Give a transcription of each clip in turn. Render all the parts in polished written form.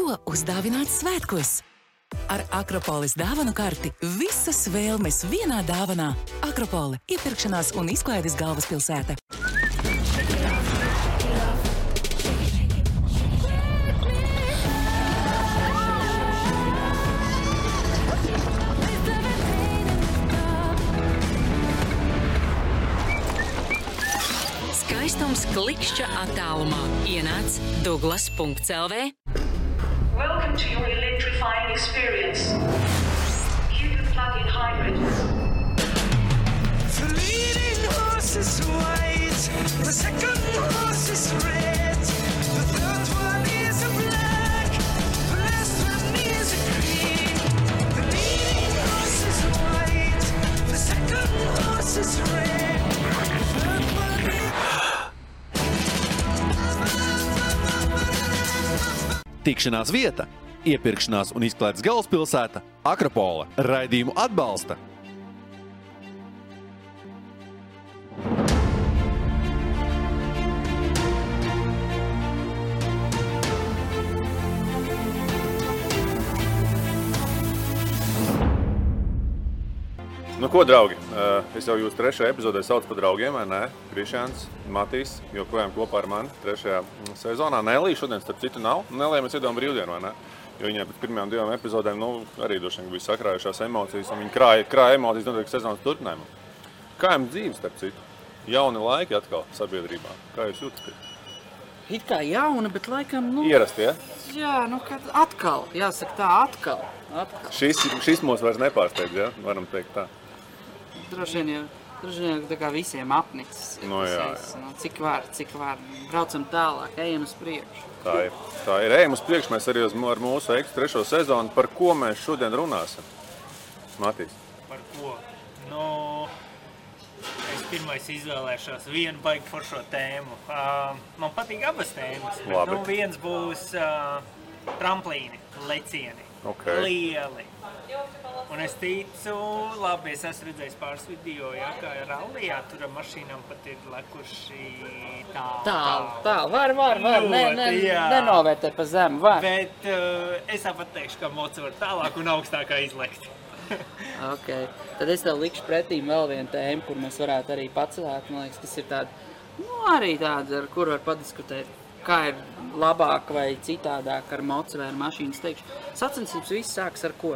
Ko uzdāvināt svētkos? Ar Akropolis dāvanu karti visas vēlmes vienā dāvanā. Akropoli – iepirkšanās un izklaides galvaspilsēta. Skaistums klikšķa attālumā. Ienāc Douglas.lv. Welcome to your electrifying experience. Cupid plug-in hybrid. The leading horse is white, the second horse is red, the third one is a black, the last one is a green. The leading horse is white, the second horse is red, the third one is... Tikšanās vieta, iepirkšanās un izklaides galvaspilsēta Akropola. Raidījumu atbalsta. Nu ko, draugi, es jau jūs trešajā epizodē saucu par draugiem, vai ne? Krišjāns, Matīs, joprojām kopā ar mani trešajā sezonā. Nelī šodien, starp citu, nav. Nelī mēs iedodam brīvdienu, vai ne? Jo viņai pēc pirmajām 2 epizodēm, arī droši vien bija sakrājušās emocijas, un viņi krāja emocijas noteikti sezonas turpinājumu. Kā jums dzīves, starp citu? Jauni laiki atkal sabiedrībā. Kā jūs jūtat? It kā jauna, bet laikam, Ierasti, ja? Jā, kad atkal, jāsaka tā, atkal. Šis mūs vairs nepārsteidz, ja? Varam teikt tā. Droši vien tā kā visiem apnicis. Jā. Cik var. Braucam tālāk, ejam uz priekšu. Tā ir. Ejam uz priekšu, mēs arī ar mūsu Ekstra 3. sezonu. Par ko mēs šodien runāsim? Matīs. Par ko? Es pirmais izvēlēšos vienu baigi foršo tēmu. Man patīk abas tēmas, bet viens būs tramplīni, lecieni, lieli. Un es ticu, labi, es esmu redzējis pāris video, kā rallijā, tur ar mašīnām pat ir lekuši tālu. Var, nenovērtē pa zemu, var. Bet es tāpat teikšu, ka moci var tālāk un augstākā izlekt. Ok, tad es tev likšu pretīm vēl vienu tēmu, kur mēs varētu arī pacelēt, man liekas, kas ir tāda, ar kuru var padiskutēt, kā ir labāk vai citādāk ar moci vai ar mašīnas teikšu. Sacensības viss sāks ar ko?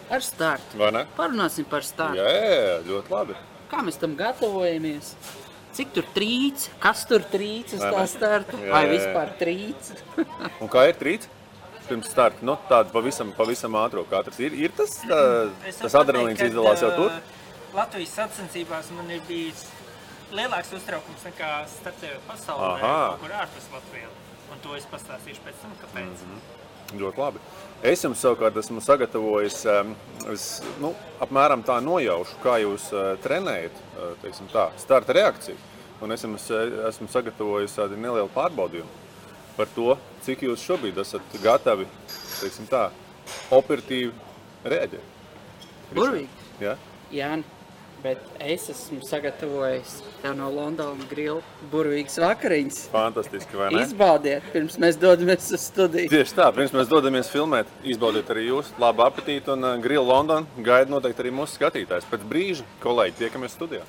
Ar startu. Vai ne? Parunāsim par startu. Jā, ļoti labi. Kā mēs tam gatavojamies? Cik tur trīc? Kas tur trīc uz tā startu? Vai vispār trīc? Un kā ir trīc? Pirms starta, tāda pavisam ātro katrs. Ir tas adrenalīns izdalās jau tur? Latvijas sacensībās man ir bijis lielāks uztraukums nekā startējot pasaulē, kur ārpus Latvijā. Un to es pastāstīšu pēc tam, kāpēc. Ļoti labi. Es jums savukārt esmu sagatavojis, apmēram tā nojaušu, kā jūs trenējat, teiksim tā, starta reakciju. Un es jums esmu sagatavojis tādu nelielu pārbaudījumu par to, cik jūs šobrīd esat gatavi, teiksim tā, operatīvi reaģēt. Burvīgi. Jā? Jāni, bet es esmu sagatavojis tev no Londona Grill burvīgas vakariņas. Fantastiski, vai ne? Izbaudiet, pirms mēs dodamies uz studiju. Tieši tā, pirms mēs dodamies filmēt, izbaudiet arī jūs. Labu apetīti un Grill London gaida noteikti arī mūsu skatītājs. Pēc brīža, kolēģi, tiekamies studijā.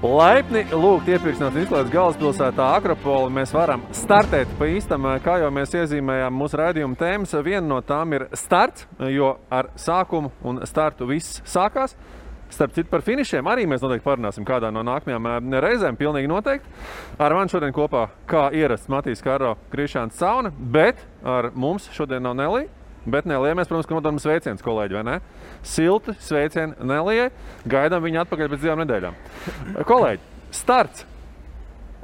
Laipni lūgt iepirkšanās izklaides galvaspilsētā Akropola. Mēs varam startēt pa īstam, kā jau mēs iezīmējām mūsu raidījuma tēmas. Viena no tām ir starts, jo ar sākumu un startu viss sākās. Starp citu par finišiem arī mēs noteikti parunāsim kādā no nākamajām reizēm, pilnīgi noteikti. Ar mani šodien kopā, kā ierasts, Matīs Karo, Krišjāns Cauna, bet ar mums šodien nav Nelī. Bet Nelijai mēs, protams, ka nododam sveiciens, kolēģi, vai ne? Silti sveicieni Nelijai, gaidām viņu atpakaļ pēc 2 nedēļām. Kolēģi, starts.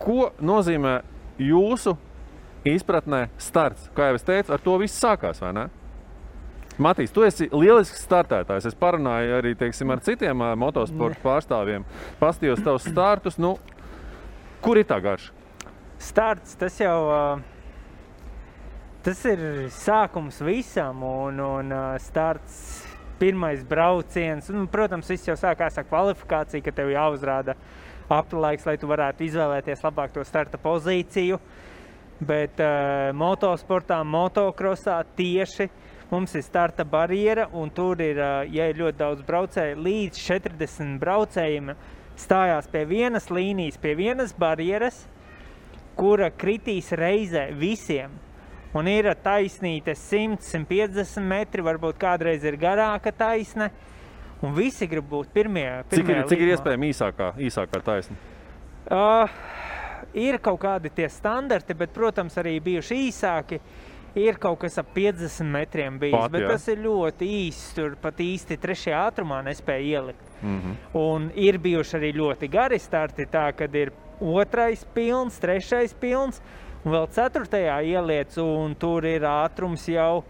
Ko nozīmē jūsu izpratnē starts? Kā jau es teicu, ar to viss sākās, vai ne? Matīs, tu esi lielisks startētājs. Es parunāju arī, teiksim, ar citiem motosporta pārstāvjiem. Pastījos tavus startus. Kur ir tā garša? Starts, tas jau Tas ir sākums visam un starts pirmais brauciens. Un, protams, viss jau sākās ar kvalifikāciju, ka tev jāuzrāda aplaiks, lai tu varētu izvēlēties labāk to starta pozīciju. Bet motosportā, motokrosā tieši mums ir starta barjera, un tur ir, ja ir ļoti daudz braucēju, līdz 40 braucējiem stājās pie vienas līnijas, pie vienas barjeras, kura kritīs reizē visiem. Un ir taisnīte 100-150 metri, varbūt kādreiz ir garāka taisne, un visi grib būt pirmie Cik ir iespējami īsākā taisne? Ir kaut kādi tie standarti, bet, protams, arī bijuši īsāki. Ir kaut kas ap 50 metriem bijis, bet tas ir ļoti īsts, tur pat īsti 3. ātrumā nespēja ielikt. Un ir bijuši arī ļoti gari starti, tā, kad ir 2. pilns, 3. pilns, un vēl 4. ieliec, un tur ir ātrums jau,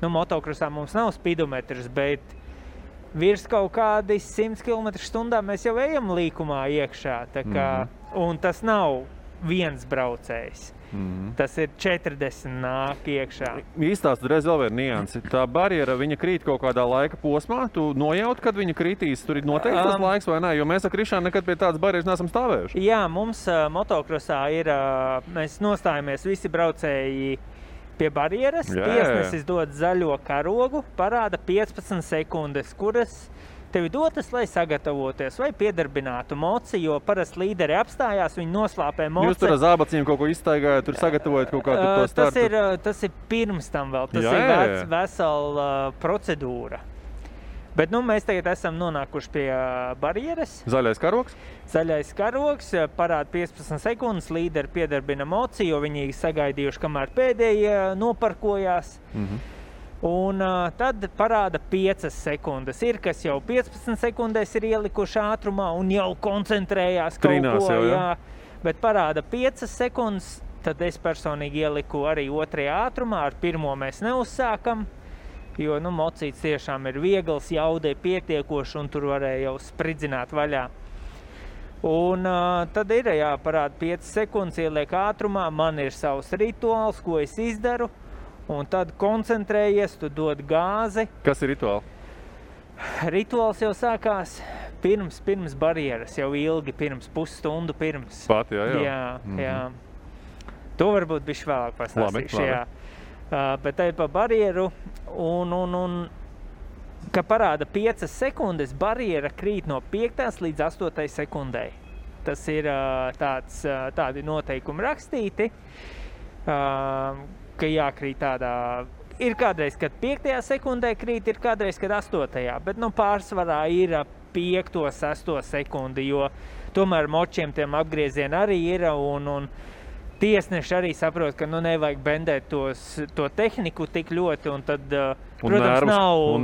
motokrosā mums nav spidometrs, bet virs kaut kādi 100 km/h mēs jau ejam līkumā iekšā, tā kā, un tas nav viens braucējs. Tas ir 40 nāk iekšā. Īstāst reiz vēl viena niansi. Tā barjera, viņa krīt kaut kādā laika posmā, tu nojaut, kad viņa kritīs, tur ir noteikti tas laiks vai nē, jo mēs ar Krišānu nekad pie tādas barjeras neesam stāvējuši. Jā, mums motokrosā ir, mēs nostājamies visi braucēji pie barjeras, tiesnesis dod zaļo karogu, parāda 15 sekundes, kuras tevi dotas, lai sagatavoties vai piedarbinātu moci, jo parasti līderi apstājās, viņi noslāpē moci. Jūs tur ar zābaciem kaut ko izstaigājat, tur sagatavojat kaut kādu to startu? Tas ir pirms tam vēl, tas ir vesela procedūra. Bet mēs tagad esam nonākuši pie barjeras. Zaļais karogs? Zaļais karogs, parāda 15 sekundes, līderi piedarbina moci, jo viņi sagaidījuši, kamēr pēdējie noparkojās. Un tad parāda 5 sekundes. Ir, kas jau 15 sekundēs ir ielikuši ātrumā un jau koncentrējās Trinās kaut ko. Jā. Bet parāda 5 sekundes, tad es personīgi ieliku arī 2. ātrumā, ar 1. mēs neuzsākam, jo mocīts tiešām ir viegls, jaudē pietiekoši un tur varēja jau spridzināt vaļā. Un tad ir, parāda 5 sekundes, ieliek ātrumā, man ir savs rituāls, ko es izdaru. Un tad koncentrējies, tu dod gāzi. Kas ir rituāli? Rituāls jau sākās pirms barjeras, jau ilgi pirms, pusstundu pirms. Pat, jā. Jā. To varbūt bišķi vēlāk pastāstīšu, jā. Bet tai pa barjeru un ka parāda 5 sekundes, barjera krīt no 5. līdz 8. sekundei. Tas ir tādi noteikumi rakstīti. Ka jākrīt tādā, ir kādreiz, kad 5. sekundē krīt, ir kādreiz, kad 8. Bet pārsvarā ir 5. 6. sekundi, jo tomēr močiem tiem apgriezieni arī ir, un tiesneši arī saprot, ka nevajag bendēt to tehniku tik ļoti, un tad, protams,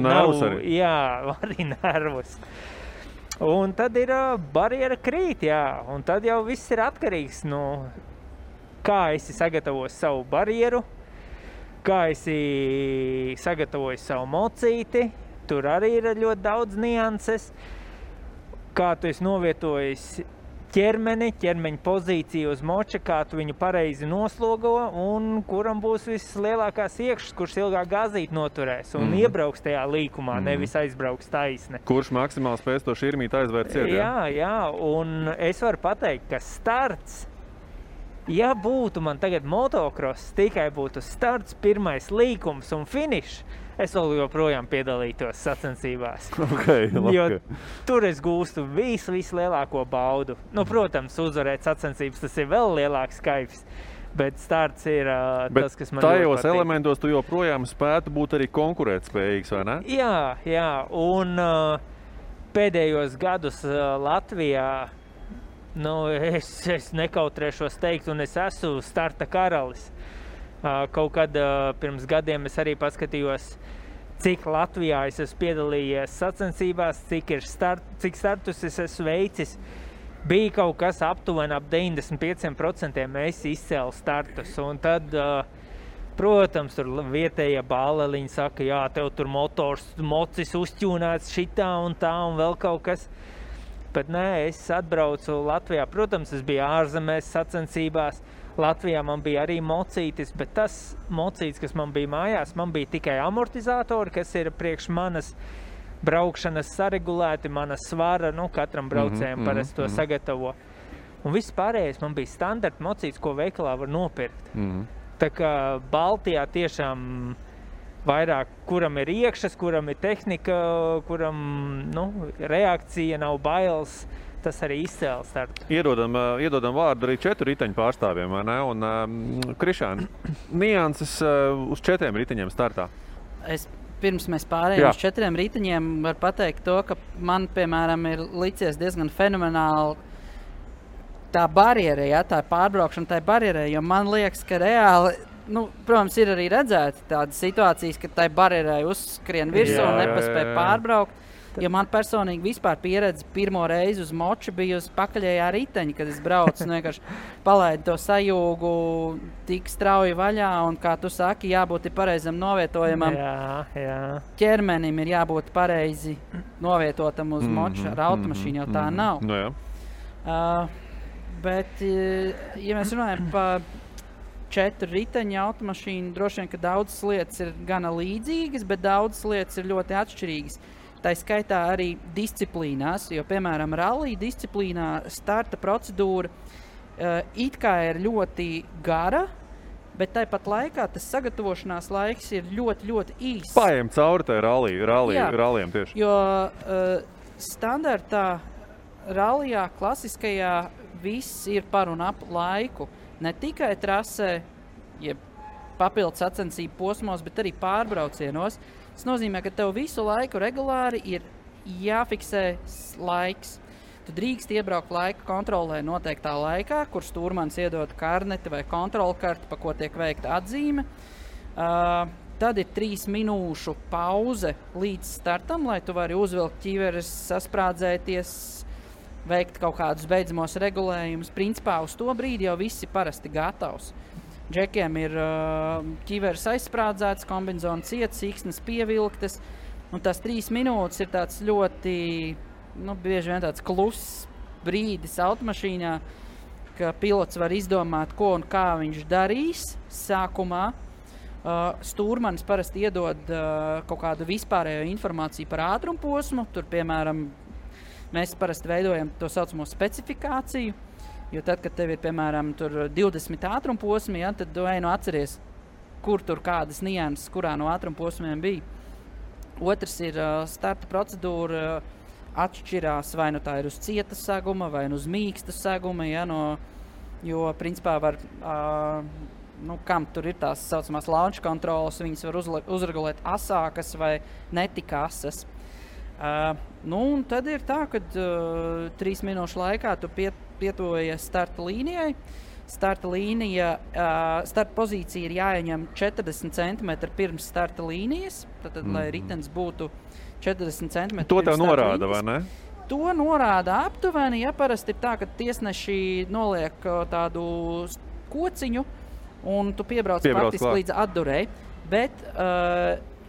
nervus arī. Jā, arī nervus. Un tad ir barjera krīt, jā, un tad jau viss ir atkarīgs, kā esi sagatavojis savu barjeru, kā esi sagatavojis savu mocīti, tur arī ir ļoti daudz nianses, kā tu esi novietojis ķermeņa pozīciju uz moča, kā tu viņu pareizi noslogo un kuram būs vislielākās iekšas, kurš ilgāk gāzīt noturēs un iebrauks tajā līkumā, nevis aizbrauks taisne. Kurš maksimāli spēs to širmīt aizvērt ciet, jā, un es varu pateikt, ka starts, ja būtu man tagad motocross, tikai būtu starts, pirmais līkums un finišs, es vēl joprojām piedalītos sacensībās. Jo tur es gūstu vislielāko baudu. Protams, uzvarēt sacensības, tas ir vēl lielāks kaifs, bet starts ir tas, kas man ļoti patīk. Bet tajos elementos tu joprojām spētu būt arī konkurētspējīgs, vai ne? Jā, un pēdējos gadus Latvijā es nekautrēšos teikt, un es esmu starta karalis. Kaut kad pirms gadiem es arī paskatījos, cik Latvijā es esmu piedalījies sacensībās, cik startus es esmu veicis. Bija kaut kas aptuveni ap 95% mēs izcēlu startus, un tad, protams, tur vietējie bāleliņi saka, jā, tev tur mocis uzķūnēts šitā un tā un vēl kaut kas. bet nē, es atbraucu Latvijā. Protams, es biju ārzemēs sacensībās. Latvijā man bija arī mocītis, bet tas mocītis, kas man bija mājās, man bija tikai amortizatori, kas ir priekš manas braukšanas saregulēti, mana svara, katram braucējiem parasti to sagatavo. Un viss pārējais man bija standarta mocītis, ko veikalā var nopirkt. Tā kā Baltijā tiešām vairāk, kuram ir iekšas, kuram ir tehnika, kuram reakcija nav bailes, tas arī izcēla startu. Iedodam vārdu arī 4 riteņu pārstāvjiem, vai ne? Un Krišāni, nianses uz 4 riteņiem startā. Pirms mēs pārējām uz 4 riteņiem, var pateikt to, ka man, piemēram, ir licies diezgan fenomenāli tā barjera, tā pārbraukšana tai barjerai, jo man liekas, ka reāli, protams, ir arī redzēti tādas situācijas, ka tai barjerai uzskrien virsū un nepaspēja pārbraukt. Jo man personīgi vispār pieredze pirmo reizi uz moču bija uz pakaļējā riteņa, kad es braucu un vienkārši palaidu to sajūgu tik strauji vaļā un, kā tu saki, jābūt pareizam novietojumam. Ķermenim ir jābūt pareizi novietotam uz moču, ar automašīnu jau tā nav. Bet, ja mēs runājam par 4 riteņu automašīnu, droši vien, ka daudzas lietas ir gana līdzīgas, bet daudzas lietas ir ļoti atšķirīgas. Tā skaitā arī disciplīnās, jo, piemēram, rallija disciplīnā starta procedūra it kā ir ļoti gara, bet tāpat laikā tas sagatavošanās laiks ir ļoti, ļoti īss. Paiem cauri tai rallijiem tieši. Jo standartā rallijā, klasiskajā, viss ir par un ap laiku. Ne tikai trasē, jeb papildu sacensību posmos, bet arī pārbraucienos. Tas nozīmē, ka tev visu laiku regulāri ir jāfiksē laiks. Tu drīkst iebraukt laika kontrolē noteiktā laikā, kur stūrmanis iedod karneti vai kontrolkarti, pa ko tiek veikta atzīme. Tad ir 3 minūšu pauze līdz startam, lai tu vari uzvilkt ķiveres, sasprādzēties, veikt kaut kādus beidzamos regulējumus. Principā uz to brīdi jau viss ir parasti gatavs. Džekiem ir ķiveres aizsprādzēts, kombinzona ciets, siksnes pievilktas, un tās 3 minūtes ir tāds ļoti, bieži vien tāds kluss brīdis automašīnā, ka pilots var izdomāt, ko un kā viņš darīs sākumā. Stūrmanis parasti iedod kaut kādu vispārējo informāciju par ātrumposmu, tur, piemēram, mēs parasti veidojam to saucamo specifikāciju. Jo tad, kad tev ir, piemēram, 20 ātrumposmi, tad tu atceries, kur tur kādas nianses, kurā no ātrumposmiem bija. Otrs ir starta procedūra atšķirās, vai tā ir uz cieta seguma, vai uz mīksta seguma, jo, principā, var, kam tur ir tās saucamās launch kontrolas, viņas var uzregulēt asākas vai netika asas. Un tad ir tā, ka 3 minūšu laikā tu pietuvojies starta līnijai. Starta pozīcija ir jāieņem 40 cm pirms starta līnijas, tad, lai ritenis būtu 40 cm to tev norāda, vai ne? To norāda aptuveni, parasti ir tā, ka tiesneši noliek tādu kociņu un tu piebrauc faktiski līdz atdurei, bet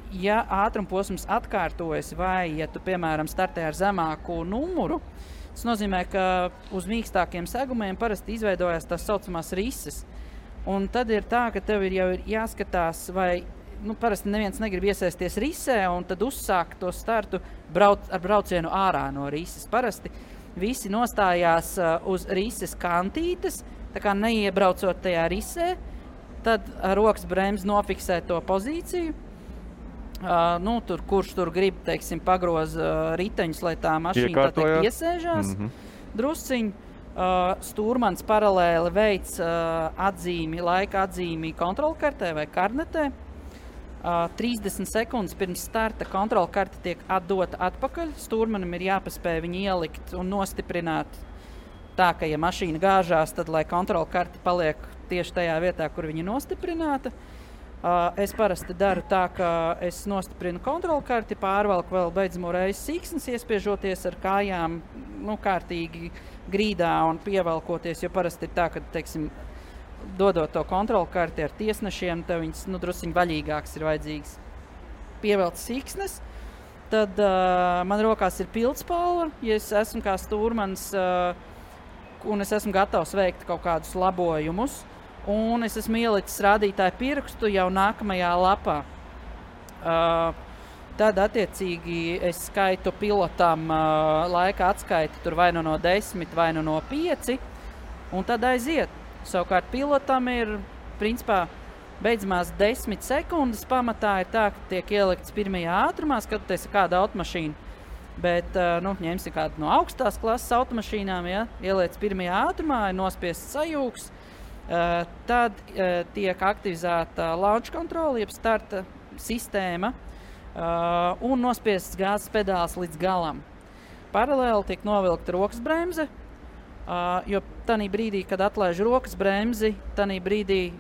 ja ātrumposms atkārtojas vai, ja tu, piemēram, startē ar zemāku numuru, tas nozīmē, ka uz mīkstākiem segumiem parasti izveidojas tās saucamās rises. Un tad ir tā, ka tev jau ir jāskatās, vai, parasti neviens negrib iesaisties risē, un tad uzsākt to startu ar braucienu ārā no rises. Parasti visi nostājās uz rises kantītes, tā kā neiebraucot tajā risē, tad rokas bremzes nofiksē to pozīciju. Kurš tur grib, teiksim, pagroz riteņus, lai tā mašīna iesēžās drusciņi. Stūrmanis paralēli veic laika atzīmi kontrolkartē vai karnetē. 30 sekundes pirms starta kontrolkarte tiek atdota atpakaļ. Stūrmanim ir jāpaspēj viņu ielikt un nostiprināt tā, ka, ja mašīna gāžās, tad, lai kontrolkarte paliek tieši tajā vietā, kur viņa nostiprināta. Es parasti daru tā, ka es nostiprinu kontrolkarti, pārvalku vēl beidzamo reizi siksnes, iespiežoties ar kājām kārtīgi grīdā un pievelkoties, jo parasti ir tā, ka, teiksim, dodot to kontrolkarti ar tiesnešiem, tev viņas drusciņ vaļīgāks ir vajadzīgs. Pievelt siksnes, Tad man rokās ir pildspalva, ja es esmu kā stūrmans un es esmu gatavs veikt kaut kādus labojumus. Un es esmu ielicis rādītāju pirkstu jau nākamajā lapā. Tad, attiecīgi, es skaitu pilotam laika atskaiti tur vai nu no 10, vai nu no 5, un tad aiziet. Savukārt pilotam ir, principā, beidzamās 10 sekundes pamatā ir tā, ka tiek ielikts pirmajā ātrumā, skatoties kāda automašīna. Bet, ņemsim kādu no augstās klases automašīnām, ja, ieliec pirmajā ātrumā, ir nospiests sajūgs, tad tiek aktivizēta launch control, jeb starta sistēma, un nospiests gāzes pedāls līdz galam. Paralēli tiek novilkta rokas bremze, jo tanī brīdī, kad atlaiž rokas bremzi, tanī brīdī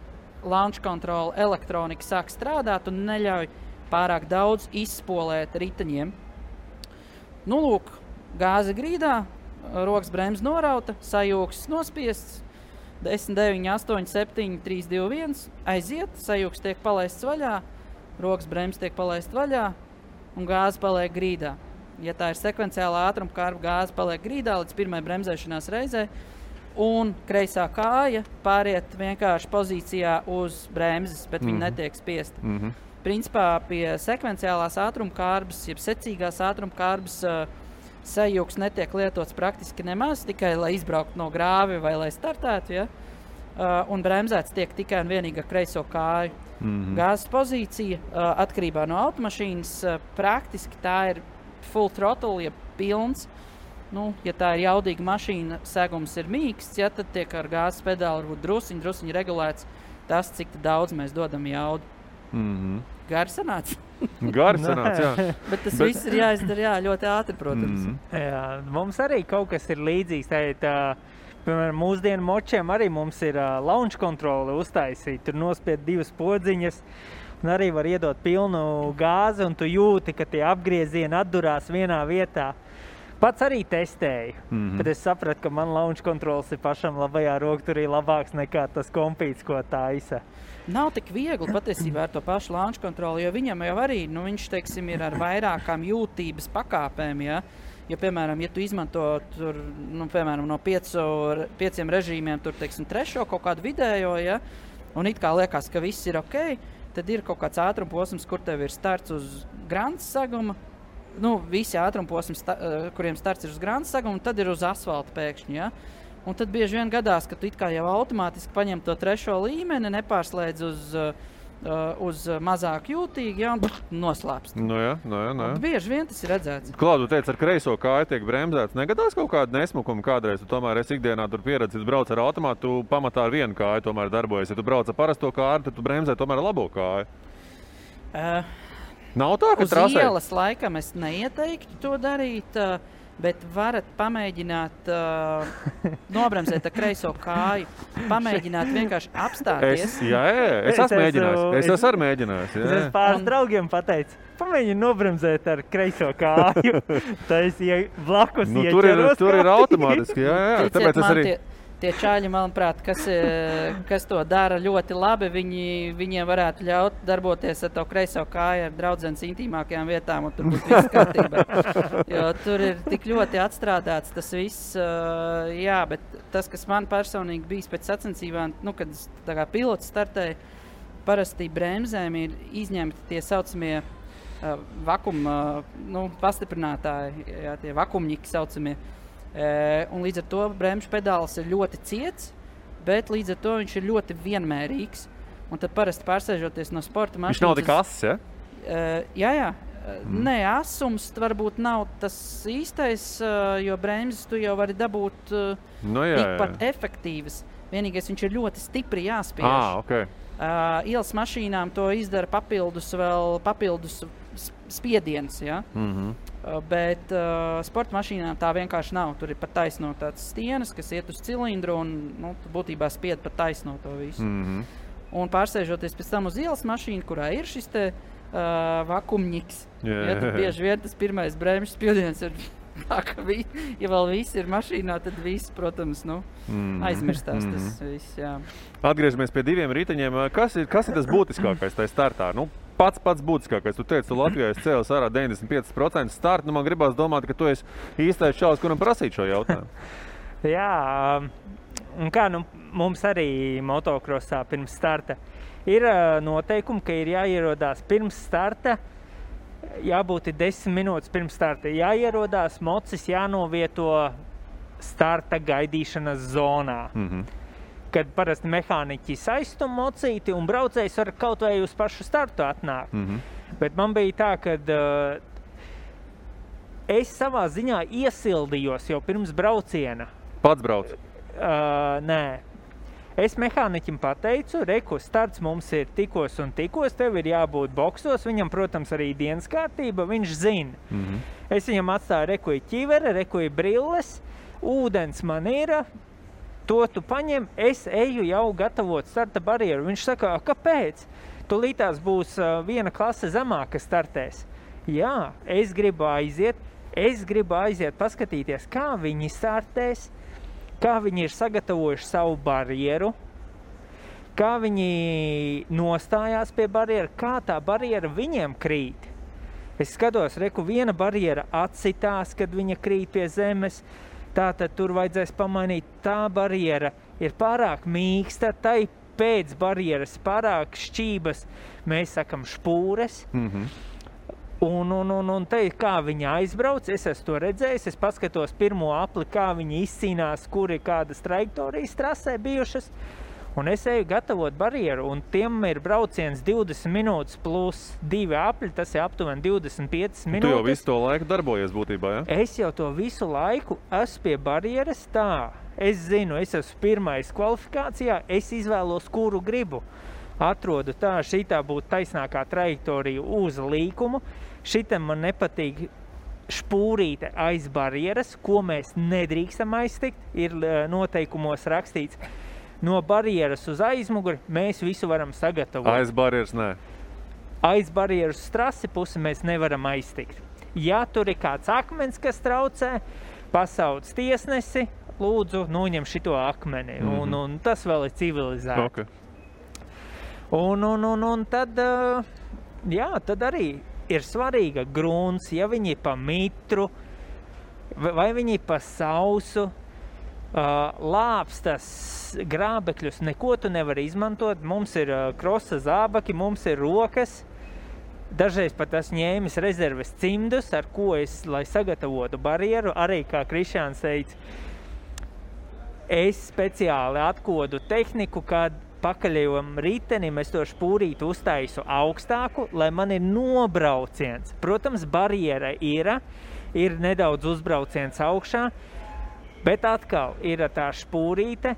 launch control elektronika sāk strādāt un neļauj pārāk daudz izspolēt riteņiem. Nu, lūk, gāze grīdā, rokas bremze norauta, sajūgs nospiests, 10, 9, 8, 7, 3, 2, 1, aiziet, sajūgs tiek palaists vaļā, rokas bremze tiek palaist vaļā un gāze paliek grīdā. Ja tā ir sekvenciāla ātruma kārba, gāze paliek grīdā līdz pirmai bremzēšanās reizei un kreisā kāja pāriet vienkārši pozīcijā uz bremzes, bet viņa netiek spiesta. Principā pie sekvenciālās ātruma kārbas, jeb secīgās ātruma kārbas sajūgs netiek lietots praktiski nemaz, tikai lai izbrauktu no grāvi vai lai startētu, ja? Un bremzēts tiek tikai un vienīgi ar kreiso kāju. Gāzes pozīcija atkarībā no automašīnas praktiski tā ir full throttle, ja pilns. Nu, ja tā ir jaudīga mašīna, segums ir mīksts, ja, tad tiek ar gāzes pedāli varbūt drusiņi regulēts tas, cik daudz mēs dodam jaudu. Gari sanāca. Gari sanāca, jā. Bet tas viss ir jāizdara ļoti ātri, protams. Jā, mums arī kaut kas ir līdzīgs. Piemēram, mūsdienu močiem arī mums ir launch kontrole uztaisīt. Tur nospied 2 podziņas un arī var iedot pilnu gāzi un tu jūti, ka tie apgriezieni atdurās vienā vietā. Pats arī testēju, bet es sapratu, ka man launch kontrols ir pašam labajā rokturī labāks nekā tas kompīts, ko taisa. Nav tik viegli patiesībā ar to pašu launch kontroli, jo viņam jau arī, viņš, teiksim, ir ar vairākām jūtības pakāpēm, ja? Jo, piemēram, ja tu izmanto tur, piemēram, no 5 režīmiem, tur, teiksim, trešo kaut kādu vidējo, ja? Un it kā liekas, ka viss ir ok, tad ir kaut kāds ātrumposms, kur tev ir starts uz grants saguma, visi ātrumposmi, kuriem starts ir uz grants saguma, un tad ir uz asfalta pēkšņi, ja? Un tad bieži vien gadās, ka tu it kā jau automātiski paņem to trešo līmeni, nepārslēdz uz mazāk jūtīgi, ja, un noslēpst. Jā. Bieži vien tas ir redzēts. Klaudu, tu teici, ar kreiso kāju tiek bremzēts. Negadās kaut kādu nesmukumu kādreiz? Tu tomēr esi ikdienā tur pieredzis, brauc ar automātu, tu pamatā ar vienu kāju tomēr darbojas. Ja tu brauc ar parasto kāju, tad tu bremzē tomēr ar labo kāju. Nav tā, ka trasē? Uz ielas laikam es neieteiktu to darīt, bet varat pamēģināt nobremzēt ar kreiso kāju. Pamēģināt vienkārši apstāties. Es esmu mēģinājis. Es esmu mēģinājis. Es pāris draugiem pateicu, pamēģini nobremzēt ar kreiso kāju. Tas blakus ieķeros. Tur ir automātiski, jā. Tāpēc es arī... Tie čāļi, manuprāt, kas to dara ļoti labi, viņiem varētu ļaut darboties ar to kreiso kāju ar draudzenes intīmākajām vietām, un tur būtu viss kārtībā. Jo tur ir tik ļoti atstrādāts tas viss, bet tas, kas man personīgi bijis pēc sacensībām, kad tā kā pilots startēja, parasti bremzēm ir izņemti tie saucamie vakuma, pastiprinātāji, jā, tie vakumņiki saucamie. Un līdz ar to bremžu pedāls ir ļoti ciets, bet līdz ar to viņš ir ļoti vienmērīgs. Un tad parasti pārsēžoties no sporta mašīnas... Viņš nav tik ass, ja? Jā. Nē, asums varbūt nav tas īstais, jo bremzes tu jau vari dabūt tikpat efektīvas. Vienīgais viņš ir ļoti stipri jāspiež. Okay. Ielas mašīnām to izdara papildus spiediens, ja? Bet sporta mašīnām tā vienkārši nav. Tur ir pat taisno tāds stienas, kas iet uz cilindru un būtībā spied pat taisno to visu. Un pārsēžoties pēc tam uz ielas mašīnu, kurā ir šis te vakumņiks, tad bieži vien tas pirmais bremžu spiediens ir tā, ka ja vēl viss ir mašīnā, tad viss, protams, aizmirstās tas viss, jā. Atgriežamies pie 2 riteņiem. Kas ir tas būtiskākais tajā startā? pats būtiskākais. Tu teici, tu Latvijā esi cēlis ārā 95% startu. Man gribās domāt, ka tu esi īstais čalis, kuram prasīt šo jautājumu. Jā, un kā mums arī motokrosā pirms starta ir noteikumi, ka ir jāierodās pirms starta, jābūt 10 minūtes pirms starta. Jāierodās, mocis jānovieto starta gaidīšanas zonā. Kad parasti mehāniķi saistum mocīti un braucējs var kaut vai uz pašu startu atnākt. Bet man bija tā, kad es savā ziņā iesildījos jau pirms brauciena. Pats brauc? Nē. Es mehāniķim pateicu, reku, starts mums ir tikos un tikos, tev ir jābūt boksos, viņam, protams, arī dienas kārtība, viņš zina. Es viņam atstāju rekuju ķivere, rekuju brilles, ūdens man ir, to tu paņem, es eju jau gatavot starta barjeru. Viņš saka, kāpēc? Tūlītās būs viena klase zemāk, kas startēs. Jā, es gribu aiziet paskatīties, kā viņi startēs, kā viņi ir sagatavojuši savu barjeru, kā viņi nostājās pie barjera, kā tā barjera viņiem krīt. Es skatos, reku, viena barjera atsitās, kad viņa krīt pie zemes, tātad tur vajadzēs pamainīt, tā barjera ir pārāk mīksta, tai pēc barjeras pārāk šķības, mēs sakam špūres. Un te, kā viņi aizbrauc, es esmu to redzējis, es paskatos pirmo apli, kā viņi izcīnās, kur ir kādas trajektorijas trasē bijušas, un es eju gatavot barjeru, un tiem ir brauciens 20 minūtes plus 2 apļi, tas ir aptuveni 25 minūtes. Tu jau visu to laiku darbojies būtībā, ja? Es jau to visu laiku esmu pie barjeras tā. Es zinu, es esmu pirmais kvalifikācijā, es izvēlos, kuru gribu. Atrodu tā, šitā būtu taisnākā trajektorija uz līkumu. Šitam man nepatīk špūrīte aiz barjeras, ko mēs nedrīkstam aiztikt, ir noteikumos rakstīts. No barjeras uz aizmuguri mēs visu varam sagatavot. Aiz barjeras nē. Aiz barjeras trasi pusi mēs nevaram aiztikt. Ja tur ir kāds akmens, kas traucē, pasauc tiesnesi, lūdzu, noņem šito akmeni. Un tas vēl ir civilizēti. Okay. Un tad, jā, tad arī ir svarīga grunts, ja viņi pa mitru, vai viņi pa sausu, lāpstas grābekļus, neko tu nevar izmantot. Mums ir krosa zābaki, mums ir rokas. Dažreiz pat esmu ņēmis rezerves cimdus, ar ko es, lai sagatavotu barjeru, arī, kā Krišjāns teica, es speciāli atkodu tehniku, kad pakaļējam ritenim, es to špūrīti uztaisu augstāku, lai man ir nobrauciens. Protams, barjera ir nedaudz uzbrauciens augšā, bet atkal ir tā špūrīte,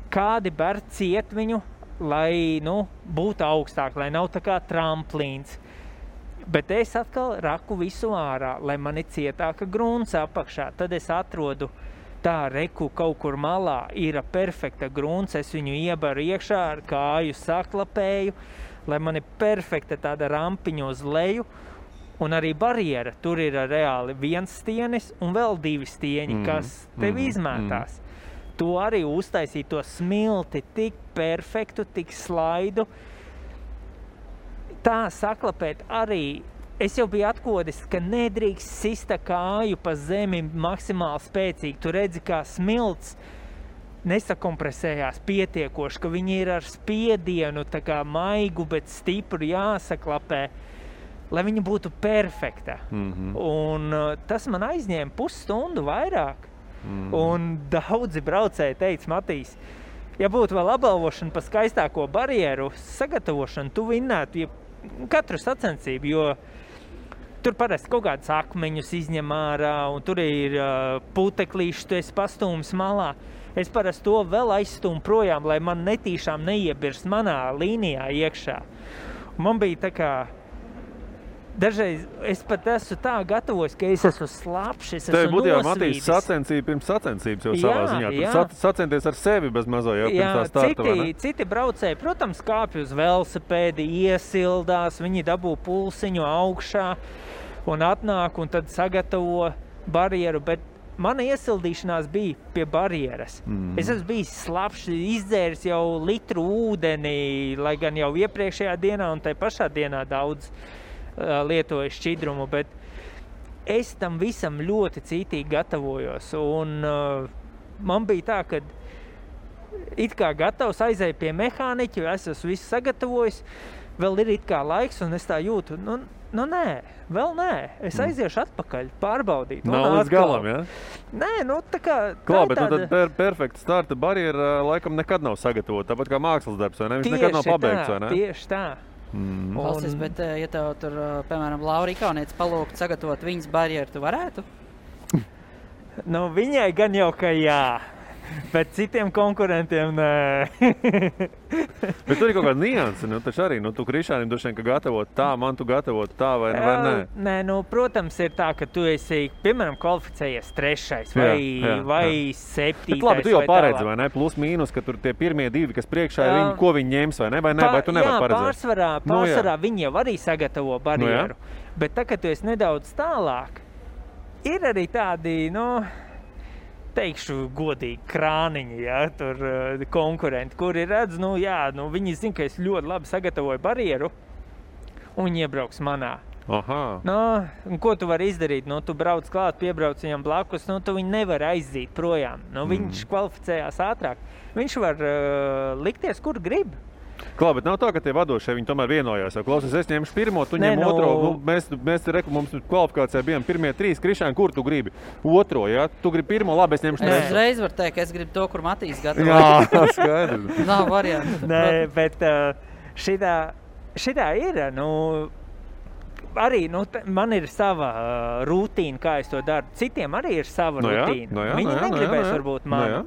kādi ber ciet viņu, lai, būtu augstāk, lai nav tā kā tramplīns. Bet es atkal raku visu ārā, lai man ir cietāka grunts apakšā. Tad es atrodu tā reku kaut kur malā, ir perfekta grunts, es viņu iebaru iekšā ar kāju saklapēju, lai man ir perfekta tāda rampiņa uz leju, un arī barjera. Tur ir reāli viens stienis un vēl 2 stieņi, kas tev izmētās. To arī uztaisīt to smilti tik perfektu, tik slaidu. Tā saklapēt arī. Es jau biju atkodis, ka nedrīkst sista kāju pa zemi maksimāli spēcīgi. Tu redzi, kā smilts nesakompresējās pietiekoši, ka viņi ir ar spiedienu, tā kā maigu, bet stipru jāsaklapē, lai viņa būtu perfekta. Un tas man aizņēma pusstundu vairāk. Un daudzi braucēji teica, Matīs, ja būtu vēl apbalvošana pa skaistāko barjeru sagatavošanu, tu vinnētu katru sacensību, jo tur parasti kaut kādus akmeņus izņem ārā, un tur ir puteklīši, tu esi pastūmis malā. Es parasti to vēl aizstūmu projām, lai man netīšām neiebirst manā līnijā iekšā. Un man bija tā kā, dažreiz es pat esmu tā gatavojis, ka es esmu slapš, es esmu nosvīdis. Tev būtu jau, Matīs, sacensība pirms sacensības jau savā ziņā. Tur sacenties ar sevi bez mazo jau pirms tā starta, vai ne? Citi braucēji, protams, kāpj uz velosipēdi, iesildās, viņi dabū pulsiņu augšā un atnāk un tad sagatavo barjeru, bet mana iesildīšanās bija pie barjeras. Es esmu bijis slapšs, izdzēris jau litru ūdeni, lai gan jau iepriekšējā dienā un tai pašā dienā daudz lietoju šķidrumu, bet es tam visam ļoti cītīgi gatavojos. Un man bija tā, ka it kā gatavs aizēju pie mehāniķa, es esmu visu sagatavojis, vēl ir it kā laiks, un es tā jūtu, nu nē, vēl nē. Es aiziešu atpakaļ, pārbaudīt. Nav līdz galam, ja? Nē, nu tā kā... Klā, bet tāda... tad perfekta starta barjera laikam nekad nav sagatavota, tāpat kā mākslas darbs, vai ne? Viņš nekad nav pabeigts, vai ne? Tieši tā. Valstis, bet ja tev tur, piemēram, Laura Ikaunietis palūgt sagatavot viņas barjeru, tu varētu? Nu, viņai gan jau, ka jā. Bet citiem konkurentiem nē. Bet tur ir kaut kāda nianse, nu taču arī, tu Krišānim droši vien, ka gatavot tā, man tu gatavot tā vai nē? Nē, nu, protams, ir tā, ka tu esi, piemēram, kvalificējies 3. vai 7. Bet labi, tu jau paredzi, vai ne? Plus mīnus, ka tur tie pirmie 2, kas priekšā ir viņi, ko viņi ņems, vai ne? Vai tu nevar paredzēt? Jā, pārsvarā viņi jau arī sagatavo barjeru. Bet tā, ka tu esi nedaudz tālāk, ir arī tādi, teikšu godīgi, krāniņi, ja, tur konkurenti, kuri redz, viņi zina, ka es ļoti labi sagatavoju barjeru, un viņi iebrauks manā. Aha. Un ko tu vari izdarīt? Tu brauc klāt, piebrauc viņam blakus, tu viņu nevar aizzīt projām. Viņš kvalificējās ātrāk. Viņš var likties, kur grib. Klā, bet nav tā, ka tie vadošie viņi tomēr vienojās. Klausies, es ņemšu pirmo, tu ņem otro. Mēs mums kvalifikācijā bijām pirmie 3. Krišāni, kur tu gribi? Otro, ja? Tu gribi pirmo, labi, es ņemšu trešo. Es uzreiz varu teikt, ka es gribu to, kur Matīs gatavo. Jā, skaidrs. Nav variantu. Nē, bet šitā ir, arī, man ir sava rutīna, kā es to daru. Citiem arī ir sava rutīna. Viņi negribēs varbūt manu.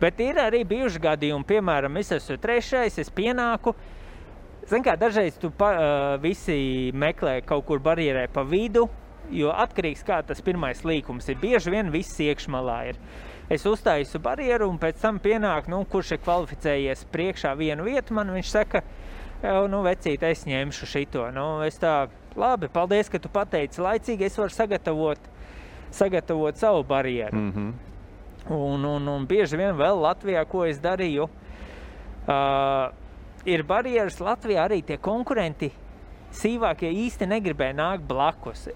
Bet ir arī bijuši gadījumi, piemēram, es esmu 3, es pienāku. Zin kā, dažreiz tu visi meklē kaut kur barjerē pa vidu, jo atkarīgs kā tas pirmais līkums ir. Bieži vien viss iekšmalā ir. Es uztāju barjeru un pēc tam pienāk, kurš ir kvalificējies priekšā vienu vietu, man viņš saka, vecīt, es ņemšu šito. Es tā, labi, paldies, ka tu pateici laicīgi, es varu sagatavot savu barjeru. Un bieži vien vēl Latvijā, ko es darīju, ir barjeras Latvijā arī tie konkurenti sīvākie īsti negribēja nākt blakus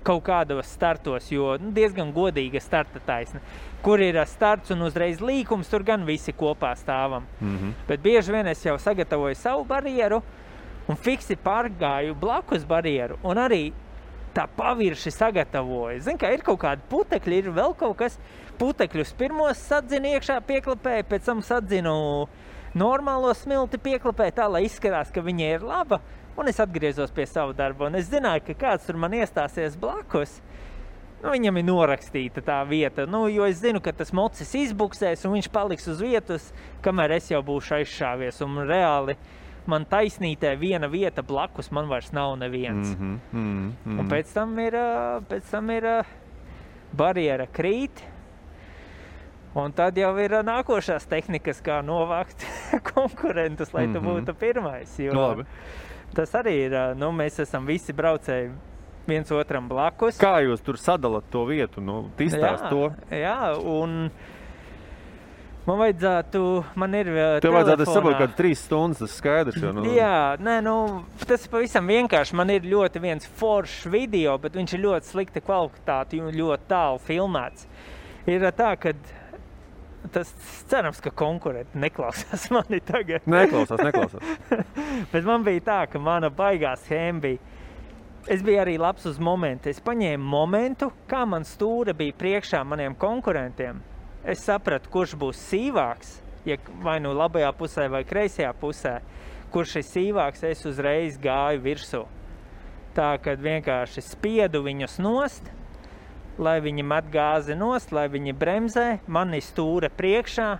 kaut kādos startos, jo diezgan godīga starta taisna. Kur ir starts un uzreiz līkums, tur gan visi kopā stāvam. Bet bieži vien es jau sagatavoju savu barjeru un fiksi pārgāju blakus barjeru un arī tā pavirši sagatavoju. Zin, kā ir kaut kādi putekļi, ir vēl kaut kas. Putekļus pirmos sadzinu iekšā pieklapēju, pēc tam sadzinu normālo smilti pieklapēju tā, lai izskatās, ka viņa ir laba. Un es atgriezos pie savu darbu, un es zināju, ka kāds tur man iestāsies blakus. Viņam ir norakstīta tā vieta, jo es zinu, ka tas mocis izbuksēs, un viņš paliks uz vietas, kamēr es jau būšu aizšāvies. Un reāli man taisnītē viena vieta blakus, man vairs nav neviens. Un pēc tam ir barjera krīt, un tad jau ir nākošās tehnikas, kā novākt konkurentus, lai tu būtu pirmais. Jo labi. Tas arī ir, mēs esam visi braucēji viens otram blakus. Kā jūs tur sadalat to vietu, izstāst to? Jā, un man vajadzētu, man ir Tev vajadzētu, es saprotu, kādu 3 stundas, tas skaidrs jau. Jā, tas ir pavisam vienkārši. Man ir ļoti viens foršs video, bet viņš ir ļoti slikta kvalitāte un ļoti tālu filmēts. Ir tā, ka tas cerams, ka konkurenti neklausās mani tagad. Neklausās. Bet man bija tā, ka mana baigā schēma bija. Es biju arī labs uz momentu. Es paņēmu momentu, kā man stūra bija priekšā maniem konkurentiem. Es sapratu, kurš būs sīvāks, vai labajā pusē vai kreisajā pusē. Kurš ir sīvāks, es uzreiz gāju virsū. Tā, kad vienkārši spiedu viņus nost, lai viņi met gāzi nost, lai viņi bremzē, mani stūra priekšā.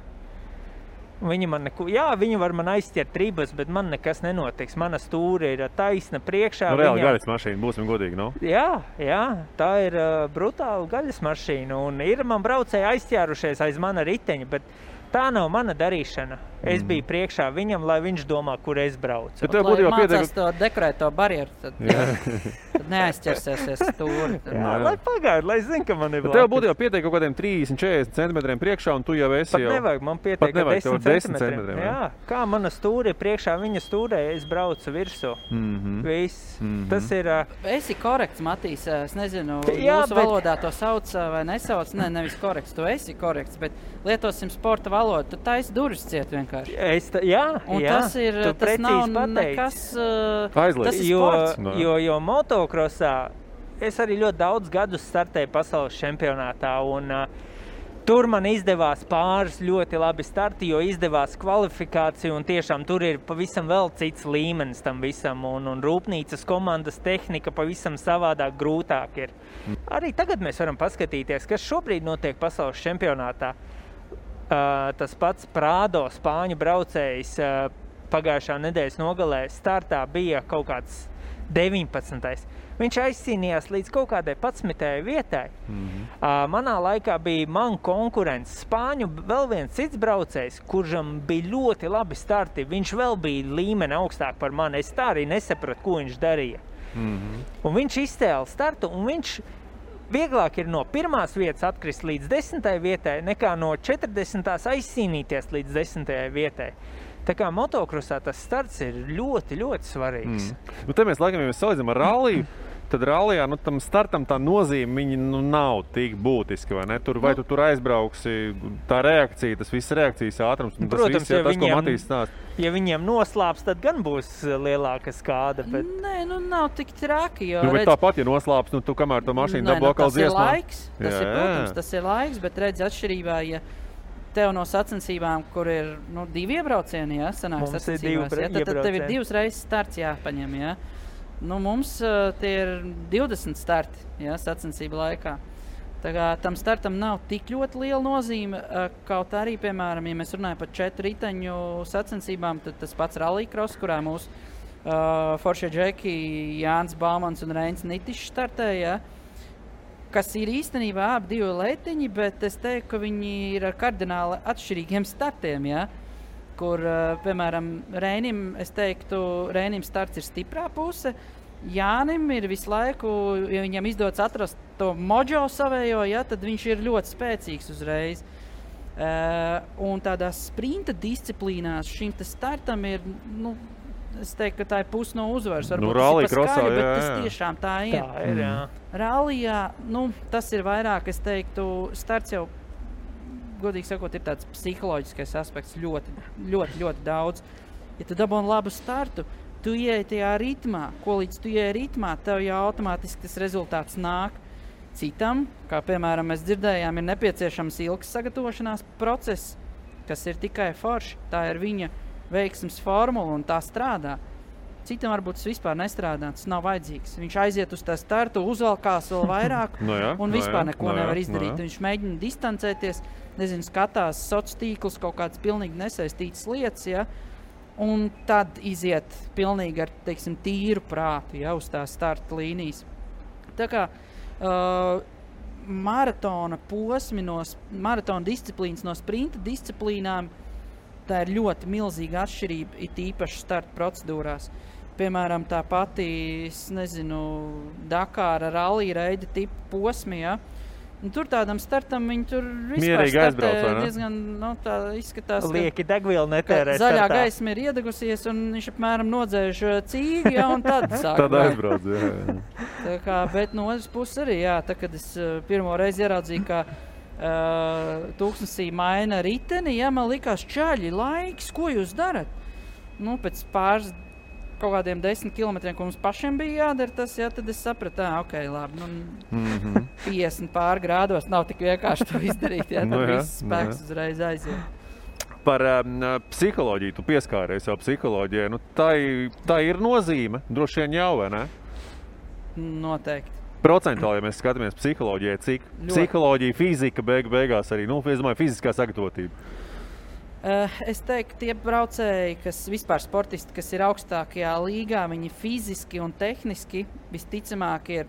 Viņi var man aizķert ribas, bet man nekas nenotiks. Mana stūra ir taisna priekšā. Reāli gaļas mašīna, būsim godīgi, Jā, tā ir brutāla gaļas mašīna. Un ir man braucēji aizķērušies aiz mana riteņa, bet tā nav mana darīšana. Es biju priekšā viņam, lai viņš domā, kur es braucu. Bet tev būtu jau mācās to dekorēto barjeru, tad neaizķersēsies stūri. Lai pagaid, lai zin, ka man ir blakus. Tev būtu jau pietiek kaut kādiem 30-40 centimetriem priekšā, un tu jau esi jau... Pat nevajag, man pietiek 10 centimetriem. Jā, kā mana stūri ir priekšā, viņa stūrē, es braucu virsū. Viss. Tas ir... Esi korekts, Matīs, es nezinu, jūsu valodā to sauc vai nesauc, nevis korekts, tu esi korekts, bet lietosim sporta valodu, tu taisi durvis ciet vienkārši. Tas ir, tas nav nekas, tas ir sports. Jo motokrosā es arī ļoti daudz gadus startēju pasaules čempionātā, un tur man izdevās pāris ļoti labi starti, jo izdevās kvalifikācija, un tiešām tur ir pavisam vēl cits līmenis tam visam, un rūpnīcas komandas tehnika pavisam savādāk grūtāk ir. Arī tagad mēs varam paskatīties, kas šobrīd notiek pasaules čempionātā. Tas pats Prado, spāņu braucējs, pagājušā nedēļas nogalē startā bija kaut kāds 19. Viņš aizcīnījās līdz kaut kādai 11. vietai. Manā laikā bija man konkurents Spāņu vēl viens cits braucējs, kuram bija ļoti labi starti. Viņš vēl bija līmeni augstāk par mani. Es tā arī nesapratu, ko viņš darīja. Un viņš izcēla startu, un viņš vieglāk ir no 1. vietas atkrist līdz 10. vietai, nekā no 40. aizcīnīties līdz 10. vietai. Tā kā motokrosā tas starts ir ļoti, ļoti svarīgs. Nu, te mēs laikam, ja mēs salīdzinām ar ralliju, tad rallijā, tam startam tā nozīme viņa nav tik būtiska, vai ne? Vai tu tur aizbrauksi, tā reakcija, tas viss reakcijas ātrums, un protams, tas viss, tas, ko Matīs stāst. Ja viņiem noslāps, tad gan būs lielāka skāda, bet... Nē, nav tik traki, jo... bet tāpat, ja noslāps, tu kamēr to mašīnu dabū atkal dziesmā. Tas ir laiks, bet redz atšķirībā, ja tev no sacensībām, kur ir 2 iebraucieni, sanāk sacensībās, tad tev ir 2 reizes starts jāpaņem, mums tie ir 20 starti, sacensību laikā. Tā kā tam startam nav tik ļoti liela nozīme, kaut arī, piemēram, ja mēs runājam par 4 riteņu sacensībām, tad tas pats rallycross, kurā mūsu foršie džeki Jānis Baumans un Reins Nitišs startēja, kas ir īstenībā abi 2 leitiņi, bet es teiktu, ka viņi ir ar kardināli atšķirīgiem startiem, kur, piemēram, Reinim, es teiktu, Reinim starts ir stiprā puse, Jānim ir visu laiku, ja viņam izdodas atrast to mojo savējo, tad viņš ir ļoti spēcīgs uzreiz. Un tādās sprinta disciplīnās šim startam ir, es teiktu, ka tā ir puse no uzvaras. Varbūt tas ir paskaļi, bet tas tiešām tā ir. Tā ir, jā. Rallijā, tas ir vairāk, es teiktu, starts jau, godīgi sakot, ir tāds psiholoģiskais aspekts ļoti, ļoti, ļoti daudz. Ja tu dabūni labu startu, tu ieej tajā ritmā, ko līdz tu ieej ritmā, tev jau automātiski tas rezultāts nāk. Citam, kā piemēram mēs dzirdējām, ir nepieciešams ilgs sagatavošanās process, kas ir tikai forši. Tā ir viņa veiksmes formula un tā strādā. Citam varbūt tas vispār nestrādā, tas nav vajadzīgs. Viņš aiziet uz tā startu, uzvalkās vēl vairāk un vispār neko nevar izdarīt. Viņš mēģina distancēties, skatās sociālos tīklus, kaut kādas pilnīgi nesaistītas lietas, un tad iziet pilnīgi ar, tīru prātu, uz tā starta līnijas. Tā kā maratona posmi, maratona disciplīnas no sprinta disciplīnām, tā ir ļoti milzīga atšķirība, it īpaši starta procedūrās. Piemēram, tā pati, Dakāra rallija reida tipa posmi, un tur tādam startam viņi tur vispār startē diezgan, tā izskatās, lieki degvielu netērē zaļā startā. Gaisma ir iedegusies, un viņš apmēram nodzēž cīgi, un tad sāk. Tad aizbrauc, Tā kā, bet no otras puses arī, tā, kad es pirmo reizi ieraudzīju, ka tūkstnesī maina riteni, man likās čaļi, laiks, ko jūs darat? Pēc pāris kaut kādiem 10 kilometriem, ko mums pašiem bija jādara tas, tad es sapratu, ok, labi, 50 pār grādos nav tik vienkārši to izdarīt, tad viss spēks uzreiz aiziet. Par psiholoģiju, tu pieskāries jau psiholoģijai, tā ir nozīme, droši vien jau, vai ne? Noteikti. Procentuāli, ja mēs skatāmies psiholoģijai, cik psiholoģija, fizika beigās arī, es domāju, fiziskā sagatavotība. Es teiktu, tie braucēji, kas vispār sportisti, kas ir augstākajā līgā, viņi fiziski un tehniski visticamāk ir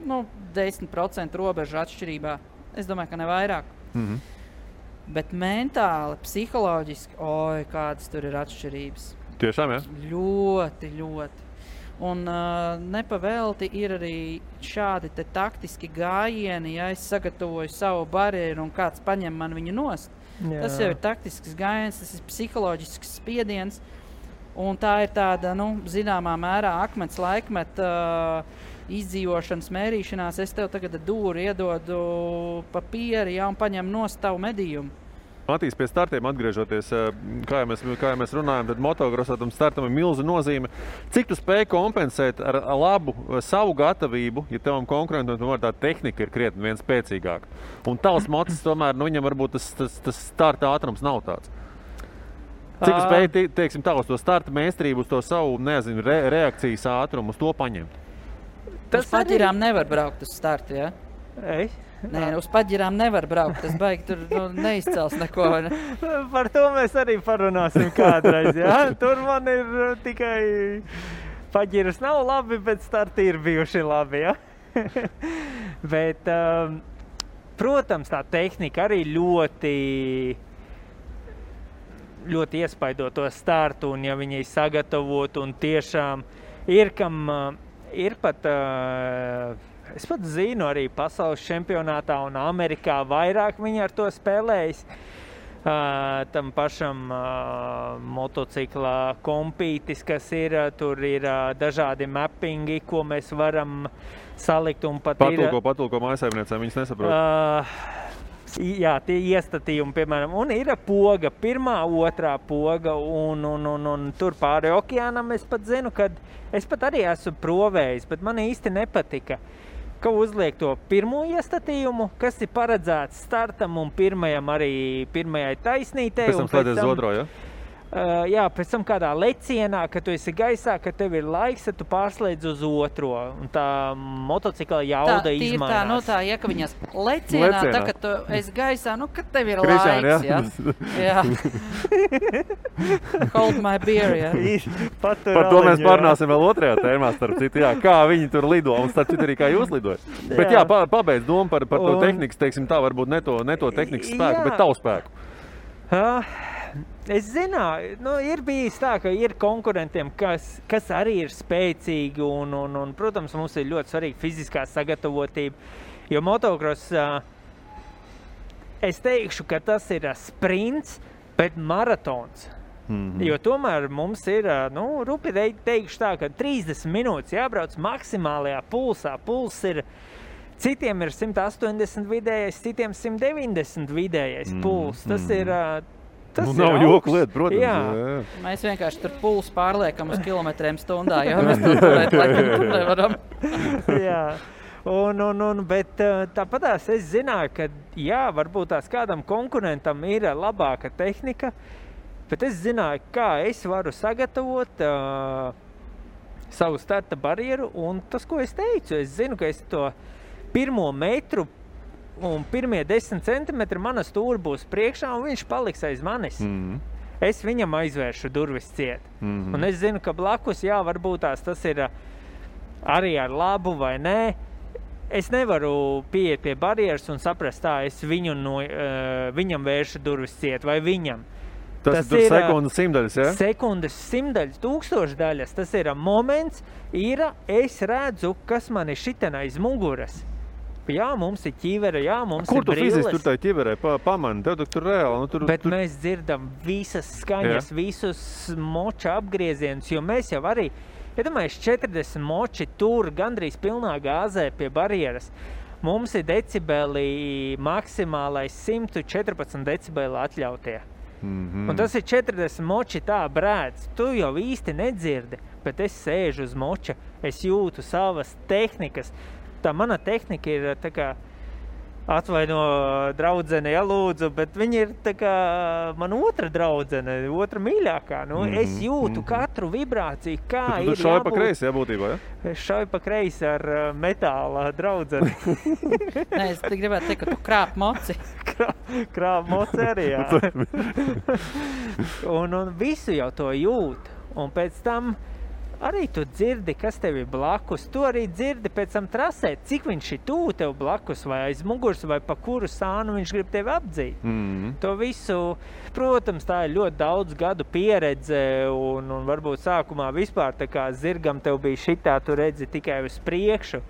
10% robežu atšķirībā. Es domāju, ka ne vairāk. Bet mentāli, psiholoģiski, kādas tur ir atšķirības. Tiešām, ja? Ļoti, ļoti. Un nepavelti ir arī šādi te taktiski gājieni, ja es sagatavoju savu barjeru un kāds paņem man viņu nost. Jā. Tas jau ir taktisks gājiens, tas ir psiholoģisks spiediens. Un tā ir tāda, zināmā mērā akmens laikmeta izdzīvošanas mērīšanās. Es tev tagad dūri iedodu papīri, un paņem nost tavu medījumu. Matīs, pie startiem atgriežoties, kā jau mēs runājam, tad motocrossā tam startam ir milza nozīme. Cik tu spēj kompensēt ar labu savu gatavību, ja tavam konkurentam tomēr tā tehnika ir krietni viens spēcīgāka? Un tavs mocis tomēr, viņam varbūt tas starta ātrums nav tāds. Cik tu spēj, teiksim, tā uz to starta mēstrību, uz to savu, reakcijas ātrumu, uz to paņemt? Uz paģirām nevar braukt uz startu, ja? Nē, uz paģirām nevar braukt, tas baigi tur neizcels neko. Ne? Par to mēs arī parunāsim kādreiz, jā? Tur man ir tikai paģiras nav labi, bet starti ir bijuši labi, jā? Bet, protams, tā tehnika arī ļoti iespaido to startu, un ja viņi sagatavot, un tiešām ir pat... Es pat zinu, arī pasaules čempionātā un Amerikā vairāk viņi ar to spēlējis. Tam pašam motocikla kompītis, kas ir, tur ir dažādi mappingi, ko mēs varam salikt. Un pat patulko mājasaimniecēm, viņas nesaprot. Jā, tie iestatījumi, piemēram, un ir poga, pirmā, otrā poga, un tur pāri okeānam es pat zinu, kad es pat arī esmu provējis, bet man īsti nepatika, ka uzliek to pirmo iestatījumu, kas ir paredzēts startam un pirmajai taisnītei. Pēc tam slēdzies uz otro, ja? Jā, pēc tam kādā lecienā, kad tu esi gaisā, kad tev ir laiks, tad tu pārslēdz uz otro. Un tā motocikla jauda izmainās. Tā, ja ka viņas lecienā, tā, kad tu esi gaisā, kad tev ir laiks, ja? Jā. Hold my beer, ja? Par to mēs parunāsim vēl otrajā tēmā, starp citu, jā, kā viņi tur lido, un starp citu arī kā jūs lidojat. Bet jā, pabeidz domu par to tehnikas, teiksim tā, varbūt ne to tehnikas spēku, bet tavu spēku. Es zināju, ir bijis tā, ka ir konkurentiem, kas arī ir spēcīgi un, protams, mums ir ļoti svarīga fiziskā sagatavotība, jo motocross, es teikšu, ka tas ir sprints, bet maratons. Jo tomēr mums ir, rupi teikšu tā, ka 30 minūtes jābrauc maksimālajā pulsā. Puls ir, citiem ir 180 vidējais, citiem 190 vidējais puls. Tas ir... nav joku lieta, protams. Jā. Mēs vienkārši tur pulsu pārliekam uz kilometriem stundā, jo mēs tur nevaram. Jā. Bet tāpatās es zināju, ka jā, varbūt tās kādam konkurentam ir labāka tehnika, bet es zināju, kā es varu sagatavot savu starta barjeru, un tas, ko es teicu, es zinu, ka es to pirmo metru un pirmie 10 centimetri mana stūra būs priekšā, un viņš paliks aiz manis. Es viņam aizvēršu durvis ciet. Un es zinu, ka blakus, jā, varbūt tas ir arī ar labu vai nē. Es nevaru pieiet pie barjeras un saprast tā, es viņam vēršu durvis ciet vai viņam. Tas ir sekundes simdaļas, ja? Sekundes simdaļas, tūkstošdaļas. Tas ir moments, es redzu, kas man ir šiten aiz muguras. Jā, mums ir ķivere, jā, mums ir brilles. Kur tu fiziski tur tā ķiverē pamani? Tev tur reāli. Bet mēs dzirdam visas skaņas, visus moča apgriezienus, jo mēs jau arī, iedomājies, 40 moči tur gandrīz pilnā gāzē pie barjeras. Mums ir decibeli maksimālais 114 decibeli atļautie. Un tas ir 40 moči tā brēdz. Tu jau īsti nedzirdi, bet es sēžu uz moča, es jūtu savas tehnikas. Tā mana tehnika ir tā kā atvaino draudzene, ja lūdzu, bet viņa ir tā kā man otra draudzene, otra mīļākā. Es jūtu katru vibrāciju, kā ir jābūt. Tu šauj pa kreisi, jā, būtībā, ja? Es šauju pa kreisi ar metāla draudzeni. Nē, es gribētu teikt, ka tu krāp moci. Krāp moci arī, jā. Un visu jau to jūt. Un pēc tam arī tu dzirdi, kas tev ir blakus. Tu arī dzirdi pēc tam trasē, cik viņš ir tuvu tev blakus, vai aiz muguras, vai pa kuru sānu viņš grib tevi apdzīt. To visu, protams, tā ir ļoti daudz gadu pieredze, un varbūt sākumā vispār tā kā zirgam tev bija šitā, tu redzi tikai uz priekšu.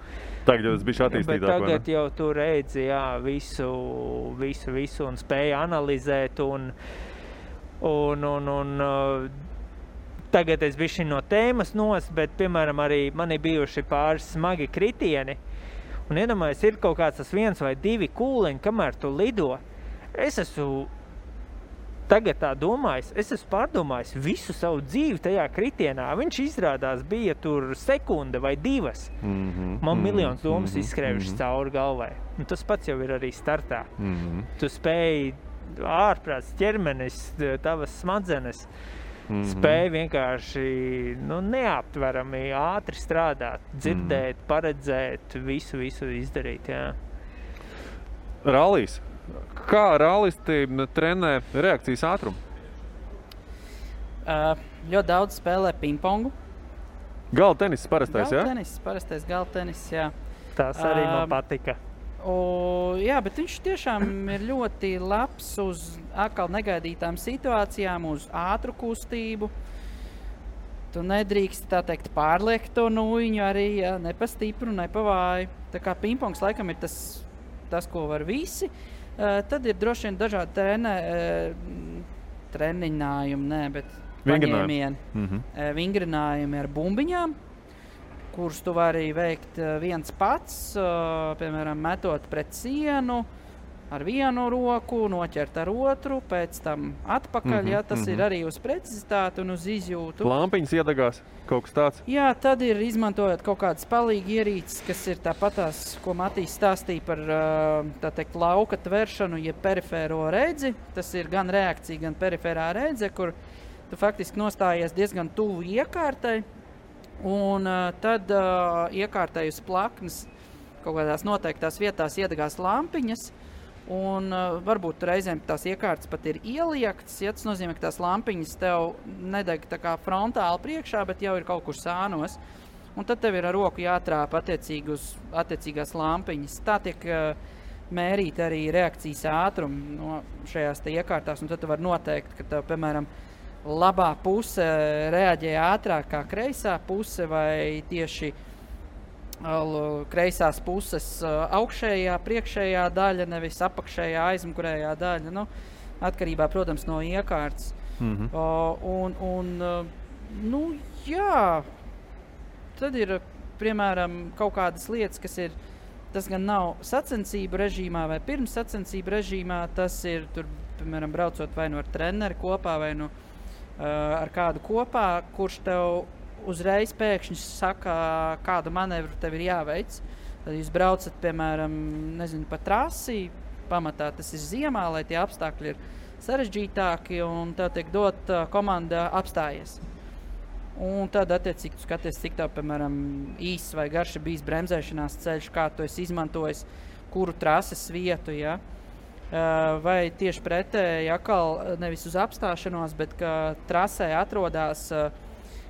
Tagad jau tas bija attīstītāk, bet tagad jau tu redzi, jā, visu un spēja analizēt, un tagad es bišķi no tēmas bet, piemēram, arī man ir bijuši pāris smagi kritieni, un iedomājies, ir kaut kāds tas 1 vai 2 kūleņi, kamēr tu lido. Es esmu tagad tā domājis, es esmu pārdomājis visu savu dzīvi tajā kritienā. Viņš izrādās bija tur sekunde vai 2. Man miljonus domas izskrējušas cauri galvai. Un tas pats jau ir arī startā. Tu spēji ārprāts ķermenis, tavas smadzenes, spēja vienkārši neaptverami ātri strādāt, dzirdēt, paredzēt, visu izdarīt. Jā. Rallijs. Kā rallisti trenē reakcijas ātrumu? Ļoti daudz spēlē pingpongu. Galda tenis parastais, jā? Parastais galda tenis, jā. Tas arī man patika. Jā, bet viņš tiešām ir ļoti labs uz atkal negaidītām situācijām, uz ātru kustību. Tu nedrīkst, tā teikt, pārliekt to nūjiņu arī, jā, ne pa stipru, ne pa vāju. Tā kā pingpongs laikam ir tas, ko var visi. Tad ir droši vien dažādi treniņājumi, bet paņēmieni. Vingrinājumi ar bumbiņām, kurus tu vari veikt viens pats, piemēram, metot pret sienu ar vienu roku, noķert ar otru, pēc tam atpakaļ, ja tas ir arī uz precizitāti un uz izjūtu. Lampiņas iedegās, kaut kas tāds? Jā, tad ir izmantojot kaut kādas palīgi ierīces, kas ir tāpatās, ko Matīs stāstīja par, tā teikt, lauka tveršanu, ja perifēro redzi. Tas ir gan reakcija, gan periferā redze, kur tu faktiski nostājies diezgan tuvu iekārtai, un tad iekārtai uz plaknes kaut kādās noteiktās vietās iedegās lampiņas, un varbūt reizēm tās iekārtas pat ir ieliektas, ja tas nozīmē, ka tās lampiņas tev nedeg tā kā frontāli priekšā, bet jau ir kaut kur sānos, un tad tev ir ar roku jātrāpa attiecīgi uz attiecīgās lampiņas. Tā tiek mērīt arī reakcijas ātrumu no šajās te iekārtās, un tad tu var noteikt, ka tev, piemēram, labā puse reaģē ātrāk kā kreisā puse, vai tieši kreisās puses augšējā, priekšējā daļa, nevis apakšējā, aizmugurējā daļa, atkarībā, protams, no iekārtas. Jā, tad ir, piemēram, kaut kādas lietas, kas ir, tas gan nav sacensību režīmā vai pirms sacensību režīmā, tas ir, tur, piemēram, braucot vai nu ar treneri kopā, vai nu ar kādu kopā, kurš tev uzreiz pēkšņi saka, kādu manevru tev ir jāveic. Tad jūs braucat, piemēram, nezinu, pa trasi, pamatā tas ir ziemā, lai tie apstākļi ir sarežģītāki, un tev tiek dot komanda apstājies. Un tad, attiecīgi, tu skaties, cik tev, piemēram, īsts vai garš ir bijis bremzēšanās ceļš, kā tu esi izmantojis, kuru trases vietu, ja? Vai tieši pretēji, atkal nevis uz apstāšanos, bet ka trasē atrodas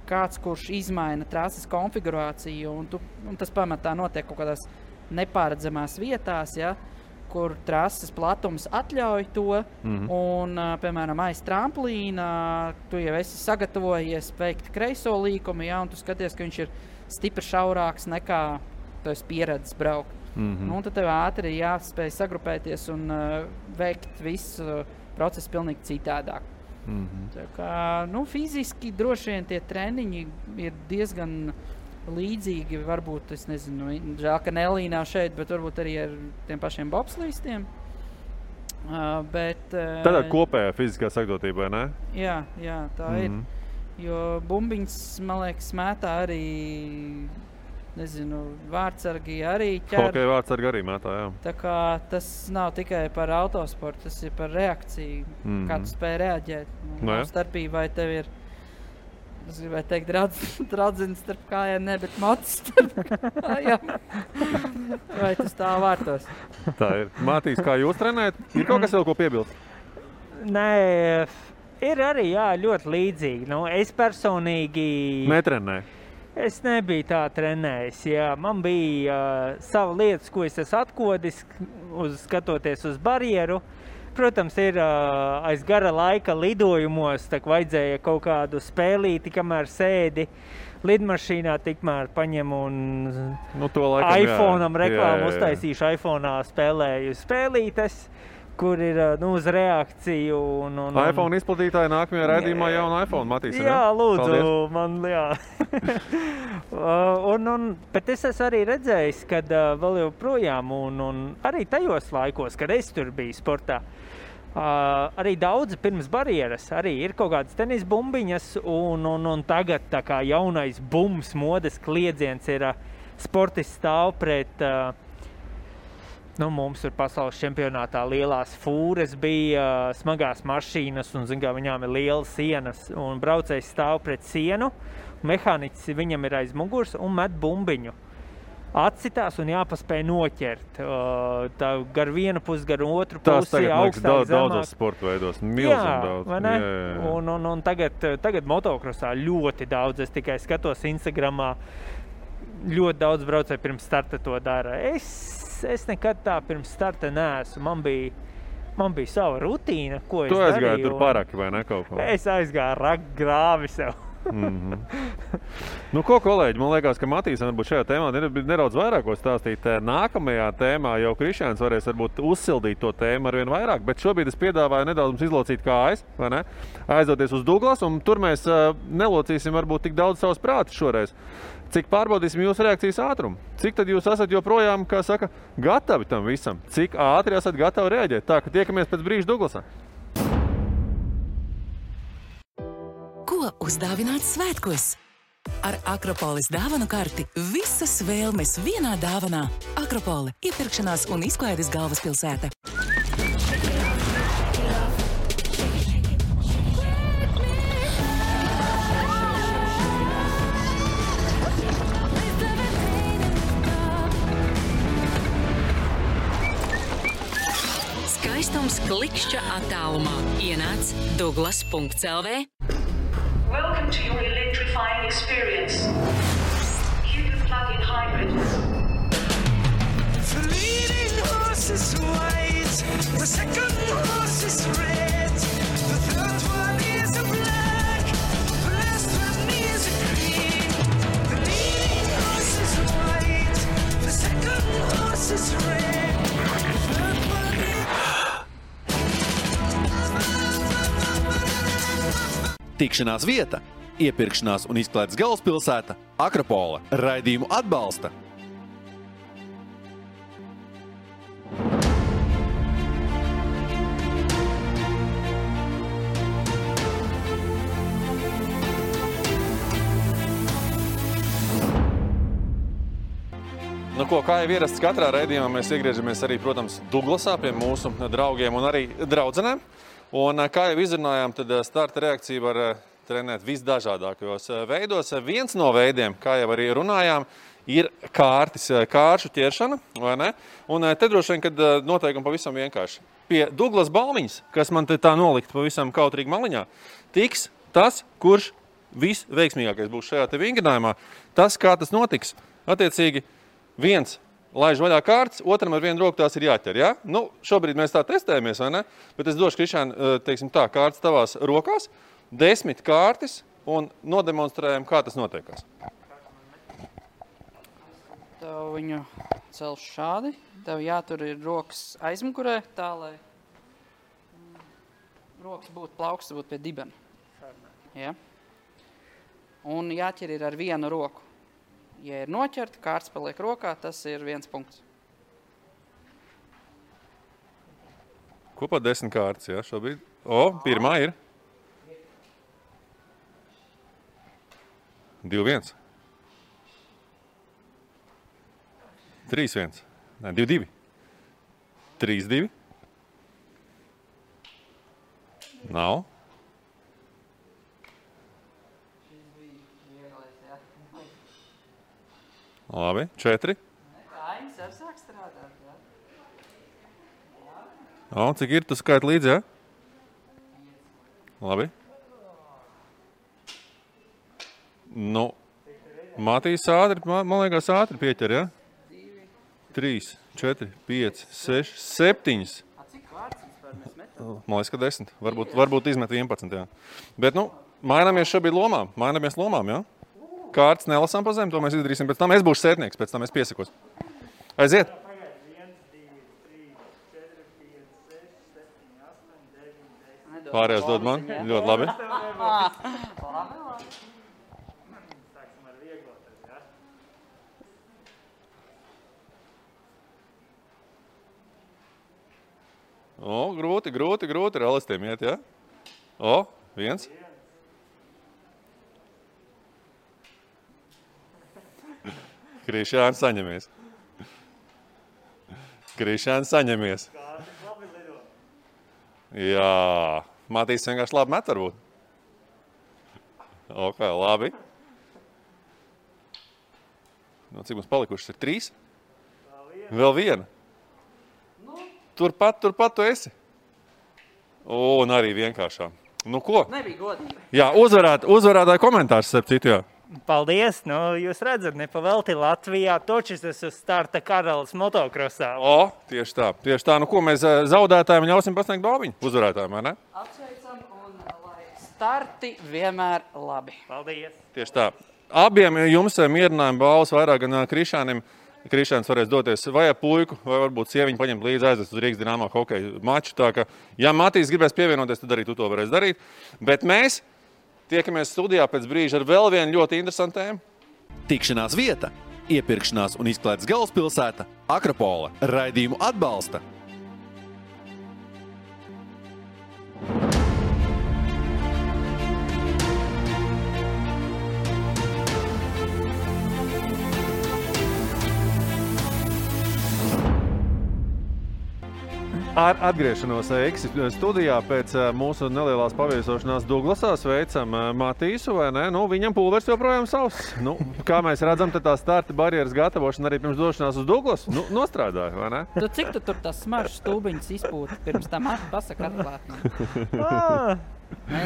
kāds, kurš izmaina trases konfigurāciju, un tas pamatā notiek kaut kādās nepāredzamās vietās, ja, kur trases platums atļauj to, un, piemēram, aiz tramplīna tu jau esi sagatavojies veikt kreiso līkumu, ja, un tu skaties, ka viņš ir stipri šaurāks nekā tu esi pieredzis braukt. Un tad tev ātri jāspēj sagrupēties un veikt visu procesu pilnīgi citādāk. Tā kā, fiziski droši vien tie treniņi ir diezgan līdzīgi, varbūt, es nezinu, žēl, ka Nelī nav šeit, bet varbūt arī ar tiem pašiem bobslīstiem. Tādā kopējā fiziskā sagatavotība, ne? Jā, tā ir. Jo bumbiņas, man liekas, mētā arī, nezinu, vārtsargi arī ķer. Hokeja vārtsargi arī mētā, jā. Tā kā tas nav tikai par autosportu, tas ir par reakciju, kā tu spēj reaģēt. Starpība, vai tev ir, es gribēju teikt, dradzins starp kājām, ne, bet mocis starp kājām. Vai tu stāv vārtos? Tā ir. Matīs, kā jūs trenējat? Ir kaut kas vēl, ko piebilst? Nē, ir arī, jā, ļoti līdzīgi. Es personīgi... Netrenēju. Es nebiju tā trenējis, jā. Man bija sava lietas, ko es esmu atkodis, skatoties uz barjeru. Protams, ir aiz gara laika lidojumos, tā vajadzēja kaut kādu spēlīti, kamēr sēdi lidmašīnā, tikmēr paņem un iPhone-am reklāmu uztaisīšu, iPhone-ā spēlēju spēlītes, kur ir uz reakciju. iPhone izplatītāji nākamajā raidījumā jaunu iPhone Matīs. Jā, lūdzu, paldies. Man, jā. Bet es esmu arī redzējis, kad vēl joprojām, un arī tajos laikos, kad es tur biju sportā, arī daudzi pirms barjeras, arī ir kaut kādas tenis bumbiņas, un tagad tā kā jaunais bums modes kliedziens ir sportists stāv pret, mums tur pasaules čempionātā lielās fūres bija, smagās mašīnas, un, viņām ir lielas sienas, un braucējs stāv pret sienu, mehāniķis viņam ir aiz muguras un met bumbiņu. Atcitās un jāpaspēj noķert. Tā gar vienu pusi, gar otru pusi, augstāk, zemāk. Daudzos sporta veidos, milzīgi daudz. Vai ne? Un tagad motokrosā ļoti daudz, es tikai skatos Instagramā, ļoti daudz braucēju pirms starta to dara. Es nekad tā pirms starta neesmu. Man bija sava rutīna, ko es darīju. Tu aizgāji tur paraki vai ne kaut ko? Es aizgāju grāvi sev. Ko, kolēģi, man liekas, ka Matīs varbūt šajā tēmā nedaudz vairāk ko stāstīt. Nākamajā tēmā jau Krišjāns varēs varbūt uzsildīt to tēmu arvien vairāk, bet šobrīd es piedāvāju nedaudz mums izlocīt kājas, vai ne? Aizdoties uz Douglas, un tur mēs nelocīsim varbūt tik daudz savus prātus šoreiz. Cik pārbaudīsim jūsu reakcijas ātrumu? Cik tad jūs esat joprojām, kā saka, gatavi tam visam? Cik ātri esat gatavi reaģēt? Tā, ka tiekamies pēc brīža Douglasā. Ko uzdāvināt svētkos? Ar Akropolis dāvanu karti visas vēlmes vienā dāvanā. Akropole – iepirkšanās un izklaides galvaspilsēta. Skaistums klikšķa attālumā. Ienāc Douglas.lv. Welcome to your electrifying experience. Cupid plug-in hybrid. The leading horse is white, the second horse is red, the third one is a black, the last one is a green. The leading horse is white, the second horse is red, the third one Tikšanās vieta, iepirkšanās un izklaides galvaspilsēta Akropole. Raidījumu atbalsta. Kā jau ierasts katrā raidījumā, mēs iegriežamies arī, protams, Douglasā pie mūsu draugiem un arī draudzenēm. Un, kā jau izrunājām, tad starta reakcija var trenēt visdažādākajos veidos. Viens no veidiem, kā jau arī runājām, ir kāršu ķeršana, vai ne? Un te droši vien, kad noteikumi pavisam vienkārši. Pie Douglas balmiņas, kas man te tā nolikt pavisam kautrīgi maliņā, tiks tas, kurš visveiksmīgākais būs šajā te vingrinājumā. Tas, kā tas notiks, attiecīgi, viens laiž vaļā kārtas, otram ar vienu roku tās ir jāķer, ja? Šobrīd mēs tā testējamies, vai ne? Bet es došu, Krišjān, teiksim tā, kārtas tavās rokās, 10 kārtas un nodemonstrējam, kā tas notiekās. Tev viņu celš šādi. Tev jātur ir rokas aizmugurē, tā, lai rokas būtu plauksts, būtu pie dibena. Ja? Un jāķer ir ar vienu roku. Ja ir noķerta, kārts paliek rokā, tas ir 1 punkts. Kopā 10 kārtas, jā, šobrīd. Pirmā ir. 2-1. 3-1. Nē, 2-2. 3-2. Nav. Labi, 4. Kājas ar sāk strādāt, jā? Cik ir? Tu skaiti līdzi, jā? Labi. Matīs ātri, man liekas, ātri pieķer, ja? 3, 4, 5, 6, 7. Cik vārds vispār mēs metam? Man liekas, ka 10. Varbūt izmet 11, jā. Bet, mainamies šobrīd lomām. Jā? Kārtas nelasām pa zem, to mēs izdarīsim pēc tam. Es būšu sētnieks, pēc tam es piesakos. Aiziet! Pārējās dod man. Ļoti labi. Grūti ar alistiem iet, ja? 1. Krišāns saņemies. Jā. Matīs vienkārši labi met varbūt. Ok, labi. Cik mums palikušas ir 3? Vēl viena. Turpat tu esi. Un arī vienkāršā. Ko? Nebija godīgi. Jā, uzvarētāju komentārs, starp citu, jā. Paldies, jūs redzat, nepavelti Latvijā, točis tas uz starta karalis motokrosā. Tieši tā. Ko mēs zaudētājiem ļausim pasniegt balviņu? Uzvarētājiem, vai ne? Apsveicam un lai starti vienmēr labi. Paldies. Tieši tā. Abiem jums mierinājuma balvas vairāk gan Krišānim. Krišāns varēs doties vai ar puiku, vai varbūt sieviņu paņemt līdzi aizvest uz Rīgas Dinamo hokeja maču. Tā ka, ja Matīs gribēs pievienoties, tad arī tu to varēs darīt. Bet mēs tiekamies studijā pēc brīža ar vēl vienu ļoti interesantu tēmu. Tikšanās vieta, iepirkšanās un izklaides galvaspilsēta Akropole. Raidījumu atbalsta Ar atgriešanos Eiksi studijā pēc mūsu nelielās paviesošanās Duglasā sveicam Matīsu, vai ne? Viņam pulvers joprojām savs. Kā mēs redzam, tad tā starta barjeras gatavošana arī pirms došanās uz Duglasu nostrādāja, vai ne? Cik tu tur tas smaržas stūbiņas izpūti pirms tam pasaka atklātni?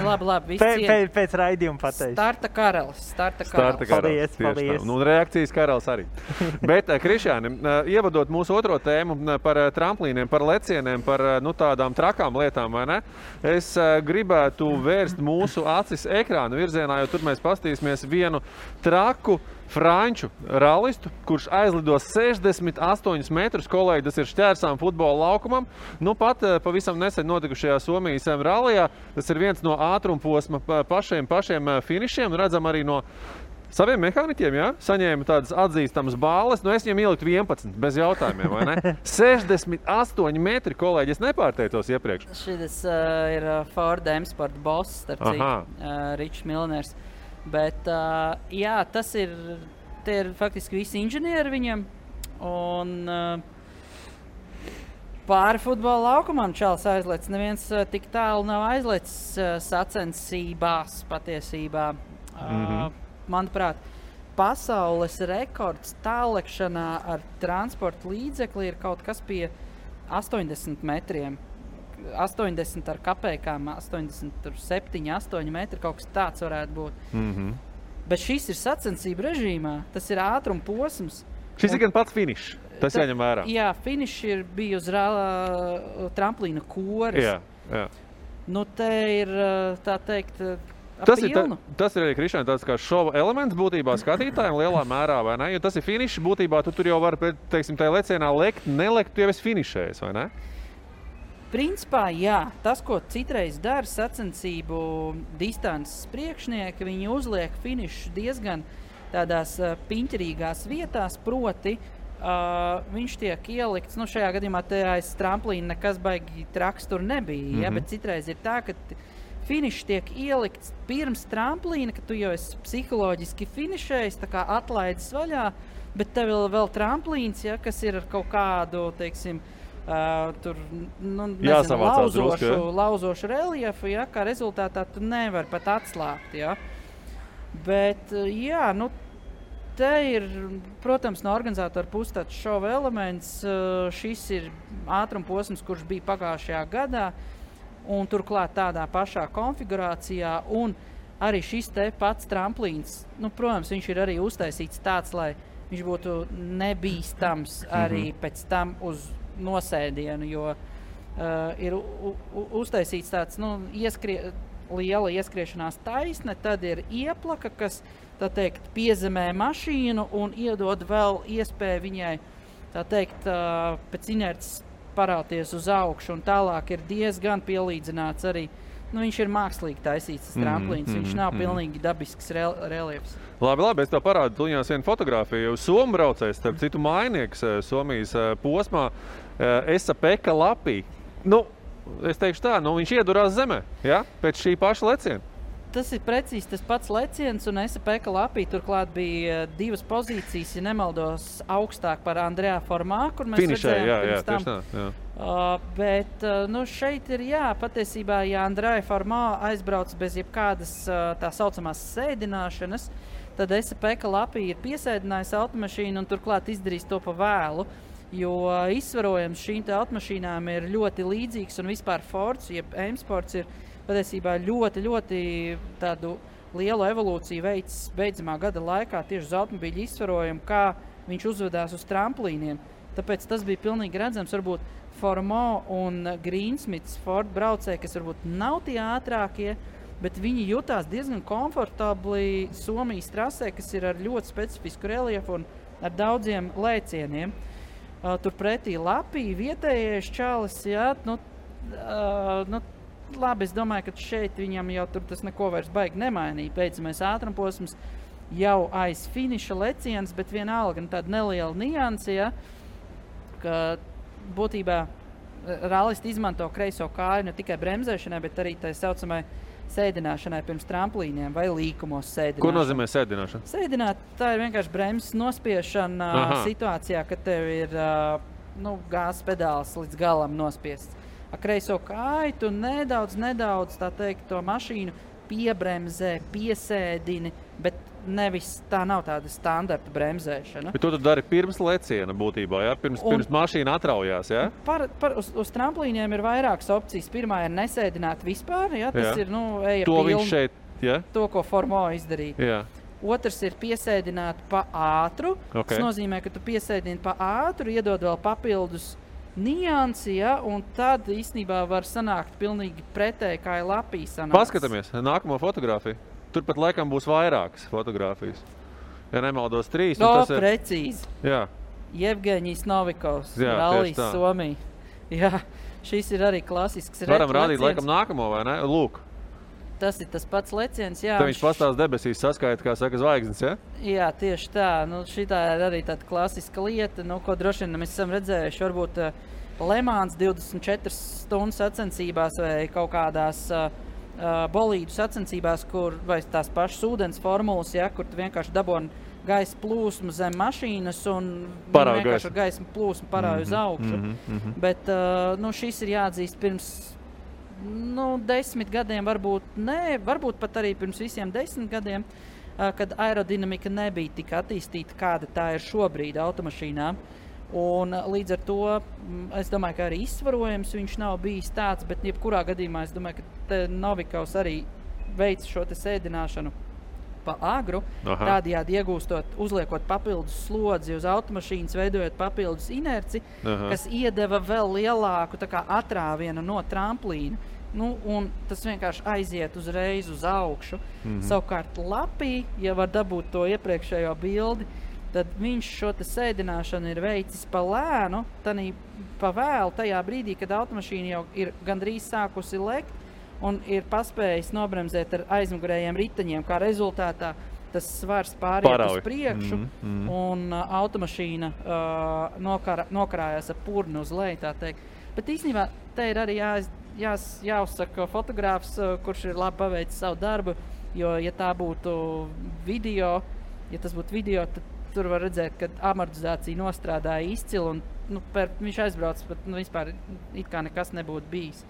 Labi, viss pēc raidījuma pateiks. Starta karalis. Paldies. Reakcijas karalis arī. Bet, Krišāni, ievadot mūsu otro tēmu par tramplīniem, par lecieniem, par tādām trakām lietām, vai ne? Es gribētu vērst mūsu acis ekrāna virzienā, jo tur mēs pastīsimies vienu traku franču rallistu, kurš aizlidos 68 metrus, kolēģi, tas ir šķērsām futbola laukumam. Pat pavisam nesen notikušajā Somijas rallijā, tas ir viens no ātrumposma pašiem finišiem, redzam arī no saviem mehāniķiem, ja? Saņēma tādas atzīstamas bāles, es viņam ieliktu 11, bez jautājumiem, vai ne? 68 metri, kolēģi, es nepārteicos iepriekš. Šis ir Ford M-Sport boss, starp citu, Ričs Milners. Bet, jā, tie ir faktiski visi inženieri viņam, un pāri futbola laukumam čalis aizlec. Neviens tik tālu nav aizlecis sacensībās patiesībā. Manuprāt, pasaules rekords tālekšanā ar transporta līdzekli ir kaut kas pie 80 metriem. 80 ar kapekām, 87, 8 metri, kaut kas tāds varētu būt. Bet šis ir sacensību režīmā, tas ir ātruma posms. Šis ir gan pats finišs, tas jāņem vērā. Jā, finišs bija uz tramplīna koris. Jā. Te ir, tā teikt, tas ir arī, Krišāni, tāds kā šova elements būtībā skatītājiem lielā mērā, vai ne? Jo tas ir finišs, būtībā tu tur jau vari, teiksim, tajā lecienā lekt, nelekt, tu jau esi finišējis, vai ne? Principā, jā. Tas, ko citreiz dara sacensību distances priekšnieki, viņi uzliek finišu diezgan tādās piņķerīgās vietās, proti viņš tiek ielikts, šajā gadījumā te aiz tramplīna nekas baigi traks tur nebija, ja? Bet citreiz ir tā, ka finišs tiek ielikts pirms tramplīna, ka tu jau esi psiholoģiski finišējis, tā kā atlaidis vaļā, bet tev vēl tramplīns, ja, kas ir ar kaut kādu, teiksim, tur, lauzošu reliefu, ja, kā rezultātā tu nevari pat atslāpt, ja. Bet, jā, te ir, protams, no organizatora puses tāds šova elements. Šis ir ātrumposms, kurš bija pagājušajā gadā, un turklāt tādā pašā konfigurācijā, un arī šis te pats tramplīns, nu, protams, viņš ir arī uztaisīts tāds, lai viņš būtu nebīstams arī pēc tam uz nosēdienu, jo ir uztaisīts tāds, nu, liela ieskriešanās taisne, tad ir ieplaka, kas, tā teikt, piezemē mašīnu un iedod vēl iespēju viņai, tā teikt, pēc inerces parauties uz augšu, un tālāk ir diezgan pielīdzināts arī. Nu, viņš ir mākslīgi taisīts, tas tramplīns, viņš nav pilnīgi dabisks reliefs. Labi, es tev parādu tuļņās vienu fotogrāfiju. Somu braucējs, starp citu mainnieks Somijas posmā, Esa-Pekka Lapī. Nu, es teikšu tā, nu viņš iedurās zemē, ja? Pēc šī paša leciena. Tas ir precīzi tas pats leciens, un Esa-Pekka Lapī turklāt bija 2 pozīcijas, ja nemaldos, augstāk par Andrejā Formā, kur mēs redzējām pirms tam. Jā. Bet nu, šeit ir, patiesībā, ja Andrejā Formā aizbrauc bez jebkādas tā saucamās sēdināšanas, tad Esa-Pekka Lapī ir piesēdinājis automašīnu un turklāt izdarījis to pa vēlu, jo izsvarojums šīm te automašīnām ir ļoti līdzīgs, un vispār Fords, jeb M-Sports ir patiesībā ļoti, ļoti tādu lielu evolūciju veids beidzamā gada laikā tieši uz automobīļu izsvarojumu, kā viņš uzvedās uz tramplīniem. Tāpēc tas bija pilnīgi redzams, varbūt Formo un Greensmits Ford braucēji, kas varbūt nav tie ātrākie, bet viņi jutās diezgan komfortabli Somijas trasē, kas ir ar ļoti specifisku reliefu un ar daudziem lēcieniem. Turpretī Lapī vietējais čalis, labi, es domāju, ka šeit viņam jau tur tas neko vairs baigi nemainīja. Beidzamais ātrumposms jau aiz finiša leciens, bet vienalga tāda neliela nianse, ka būtībā rallisti izmanto kreiso kāju ne tikai bremzēšanai, bet arī tā saucamai sēdināšanai pirms tramplīniem vai līkumos sēdināšana. Ko nozīmē sēdināšana? Sēdināt, tā ir vienkārši bremzes nospiešana situācijā, kad tev ir gāzes pedāls līdz galam nospiests. Ar kreiso kāju tu nedaudz, tā teikt, to mašīnu piebremzē, piesēdini, bet nevis tā nav tāda standarta bremzēšana. Bet to tu dari pirms leciena būtībā, ja? Pirms mašīna atraujās, ja? Uz tramplīniem ir vairākas opcijas. Pirmā ir nesēdināt vispār, ja? Tas ir, eja to pilni. Viņš šeit, ja? To, ko Formo izdarīja. Jā. Otrs ir piesēdināt pa ātru. Tas nozīmē, ka tu piesēdini pa ātru, iedod vēl papildus niansi, ja? Un tad īstenībā var sanākt pilnīgi pretēji, kā ir Lapī sanāks. Paskatāmies nākamo fotogrāfiju. Turpat laikam būs vairākas fotogrāfijas. Ja nemaldos 3. Precīzi. Jā. Jevgeņijs Novikovs, rallijs Somija. Jā, šis ir arī klasisks Varam rādīt laikam nākamo, vai ne? Lūk. Tas ir tas pats leciens, jā. Tad viņš pastāv debesīs saskaita, kā saka, zvaigznes, ja? Jā, tieši tā. Šitā ir arī tāda klasiska lieta, ko droši vien mēs esam redzējuši. Varbūt Le Mans 24 stundu sacensībās vai kaut kādās bolīdu sacensībās, vai tās pašas ūdens formulas, ja, kur tu vienkārši daboni gaisa plūsmu zem mašīnas un vienkārši ar gaisa plūsmu parāju uz augšu. Bet šis ir jāatzīst pirms 10 gadiem, varbūt pat arī pirms visiem 10 gadiem, kad aerodinamika nebija tik attīstīta, kāda tā ir šobrīd automašīnām. Un līdz ar to es domāju, ka arī izsvarojums viņš nav bijis tāds, bet jebkurā gadījumā es domāju, ka Novikovs arī veic šo te sēdināšanu pa agru, tādējādi iegūstot, uzliekot papildus slodzi uz automašīnas, veidojot papildus inerci, kas iedeva vēl lielāku tā kā atrāvienu no tramplīna. Un tas vienkārši aiziet uzreiz uz augšu. Savukārt Lapī, ja var dabūt to iepriekšējo bildi, tad viņš šo te sēdināšanu ir veicis pa lēnu, pa vēlu tajā brīdī, kad automašīna jau ir gandrīz sākusi lekt un ir paspējis nobremzēt ar aizmugurējiem riteņiem, kā rezultātā tas svars pāriet uz priekšu un automašīna nokarājās ar purnu uz leju, tā teikt. Bet īstenībā te ir arī jāuzsaka fotogrāfs, kurš ir labi paveicis savu darbu, jo, ja tā būtu video, tad tur var redzēt, ka amortizācija nostrādāja izcili un viņš aizbrauc, bet vispār it kā nekas nebūtu bijis.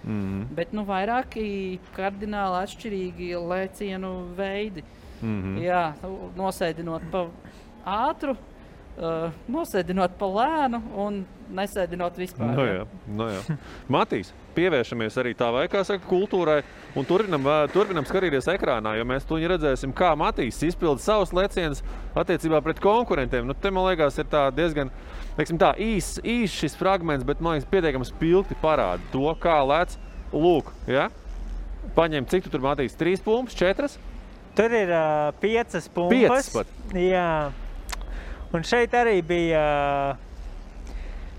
Bet vairāki kardināli atšķirīgi lēcienu veidi. Jā, nosēdinot pa ātru, nosēdinot pa lēnu un nesēdinot vispār. Nu jā. Matīs, pievēršamies arī tā vai, kā saka, kultūrai un turpinam skatīties ekrānā, jo mēs tuņi redzēsim, kā Matīs izpilda savus lecienus attiecībā pret konkurentiem. Nu, te, man liekas, ir tā diezgan, teiksim tā, īs šis fragments, bet, man liekas, pietiekami spilgti parāda to, kā lec. Lūk, ja? Paņem, cik tu tur, Matīs, 3 pumpas, 4? Tur ir 5 pumpas. 5 pat? Jā. Un šeit arī bija,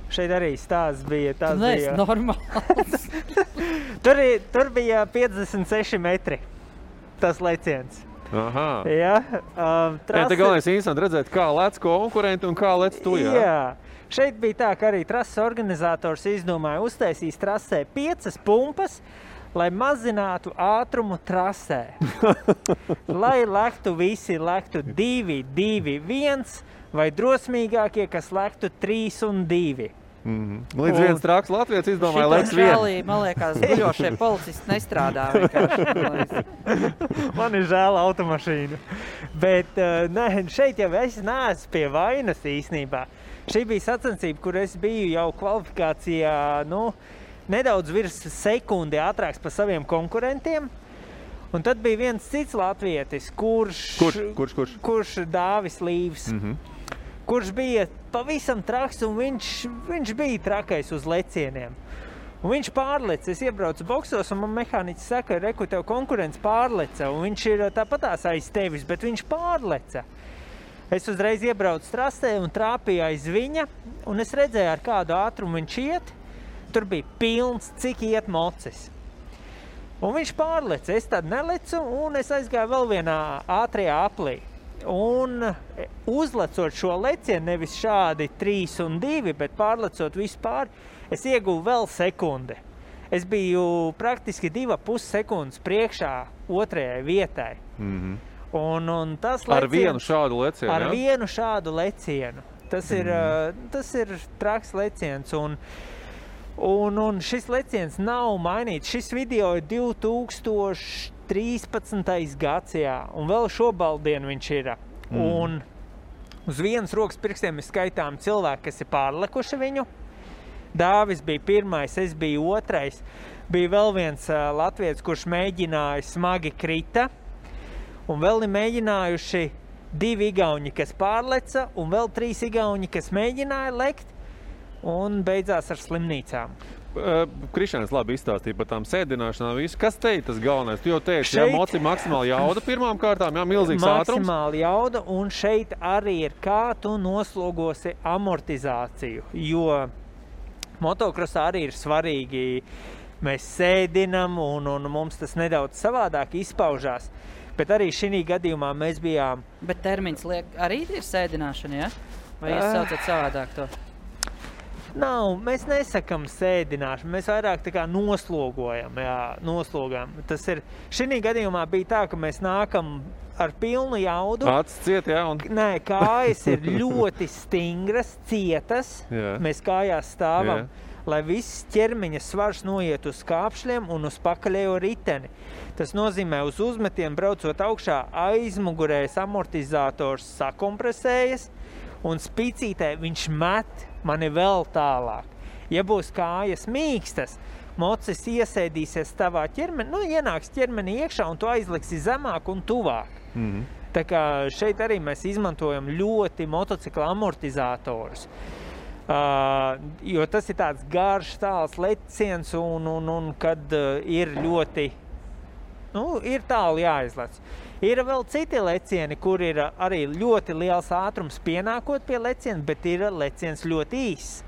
stāsts bija. Tu neesi normāls. tur bija 56 metri, tas leciens. Aha. Jā. Te galvenais interesanti redzēt, kā lec konkurenti un kā lec tu, jā? Jā. Šeit bija tā, ka arī trases organizators izdomāja uztaisīs trasē 5 pumpas, lai mazinātu ātrumu trasē. Lai visi lektu 2, 2, 1 vai drosmīgākie, kas lektu 3 un 2. Līdz viens traks Latvijas izdomāja leks 1. Man liekas, guļošie policisti nestrādā vienkārši. Man ir žēl automašīnu. Bet šeit jau es neesmu pie vainas īstenībā. Šī bija sacensība, kur es biju jau kvalifikācijā, nedaudz virs sekundi ātrāks par saviem konkurentiem. Un tad bija viens cits latvietis, kurš Dāvis Līvs, kurš bija pavisam traks un viņš bija trakais uz lecieniem. Un viņš pārleca, es iebraucu boksos un man mehāniķis saka, reku, tev konkurents pārleca un viņš ir tāpatās aiz tevis, bet viņš pārleca. Es uzreiz iebraucu trasē un trāpīju aiz viņa un es redzēju, ar kādu ātrumu viņš iet. Tur bija pilns, cik iet mocis. Un viņš pārleca, es tad nelecu un es aizgāju vēl vienā ātrajā aplī. Un uzlecot šo lecienu, nevis šādi 3 un 2, bet pārlecot vispār, es ieguvu vēl sekundi. Es biju praktiski 2,5 sekundes priekšā otrajai vietai. Un tas leciens, ar vienu šādu lecienu, Ar vienu šādu lecienu. Tas ir traks leciens. Un šis leciens nav mainīts. Šis video ir 2013. gads, jā. Un vēl šobaldienu viņš ir. Un uz vienas rokas pirkstiem ir skaitām cilvēki, kas ir pārlekuši viņu. Dāvis bija pirmais, es biju otrais. Bija vēl viens latvietis, kurš mēģināja, smagi krita. Un vēl ir mēģinājuši 2 igauņi, kas pārleca, un vēl 3 igauņi, kas mēģināja lekt, un beidzās ar slimnīcām. Krišāns labi izstāstīja par tām sēdināšanām visu. Kas te ir tas galvenais? Tu jau teici, jā, maksimāli jauda pirmām kārtām, jā, milzīgs ātrums. Maksimāli jauda, un šeit arī ir, kā tu noslogosi amortizāciju, jo motokrosā arī ir svarīgi, mēs sēdinam, un mums tas nedaudz savādāk izpaužās. Bet arī šī gadījumā mēs bijām... Bet termins arī ir sēdināšana, ja? Vai jūs saucat savādāk to? Nav, mēs nesakam sēdināšanu, mēs vairāk tā kā noslogojam, Tas ir, šī gadījumā bija tā, ka mēs nākam ar pilnu jaudu. Acis ciet, jā? Nē, kājas ir ļoti stingras, cietas, mēs kājās stāvam. Jā. Lai viss ķermeņa svars noiet uz kāpšļiem un uz pakaļējo riteni. Tas nozīmē, uz uzmetiem braucot augšā aizmugurējais amortizators sakompresējas un spicītē viņš met mani vēl tālāk. Ja būs kājas mīkstas, mocis iesēdīsies tavā ķermenī, ienāks ķermenī iekšā un tu aizliksi zemāk un tuvāk. Tā kā šeit arī mēs izmantojam ļoti motocikla amortizatorus. Jo tas ir tāds garš, tāls leciens un kad ir ļoti, ir tālu jāizlec. Ir vēl citi lecieni, kur ir arī ļoti liels ātrums pienākot pie leciena, bet ir leciens ļoti īss.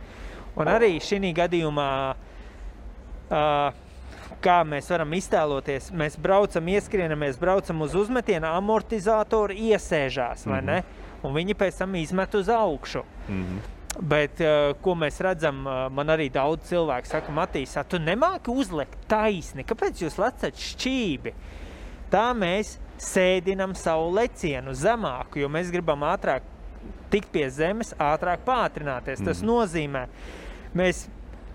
Un arī šī gadījumā, kā mēs varam iztēloties, mēs braucam, ieskrienamies, braucam uz uzmetienu, amortizātori iesēžās, vai ne? Un viņi pēc tam izmet uz augšu. Bet, ko mēs redzam, man arī daudz cilvēku saka, Matīs, tu nemāki uzlekt taisni, kāpēc jūs lecat šķībi? Tā mēs sēdinam savu lecienu zemāku, jo mēs gribam ātrāk tikt pie zemes, ātrāk pātrināties. Tas nozīmē, mēs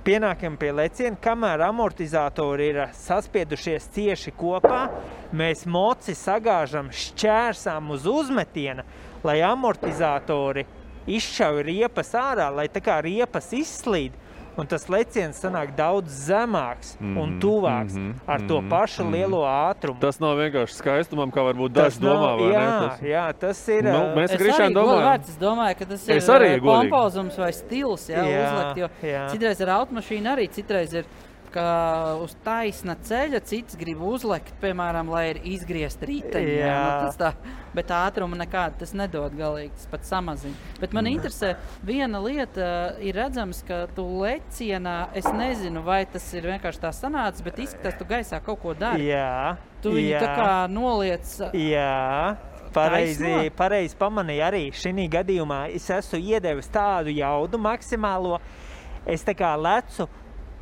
pienākam pie leciena, kamēr amortizatori ir saspiedušies cieši kopā, mēs moci sagāžam šķērsām uz uzmetiena, lai amortizatori izšauj riepas ārā, lai tā kā riepas izslīd. Un tas leciens sanāk daudz zemāks un tuvāks ar to pašu lielo ātrumu. Tas nav vienkārši skaistumam, kā varbūt daži domā, vai ne? Jā, tas ir... Mēs Krišāni domājam. Es domāju, ka tas ir pompozums vai stils, uzlikt, jo citreiz ar automašīnu arī, citreiz ir ka uz taisna ceļa cits grib uzlekt, piemēram, lai ir izgriezt riteņi. Bet ātruma nekāda tas nedod galīgi, tas pat samazina. Bet man interesē, viena lieta ir redzams, ka tu lecienā, es nezinu, vai tas ir vienkārši tā sanācis, bet izskatās, tu gaisā kaut ko dari. Tu viņu tā kā noliec... Pareizi pamanīja arī šī gadījumā. Es esmu iedevis tādu jaudu maksimālo. Es tā kā lecu,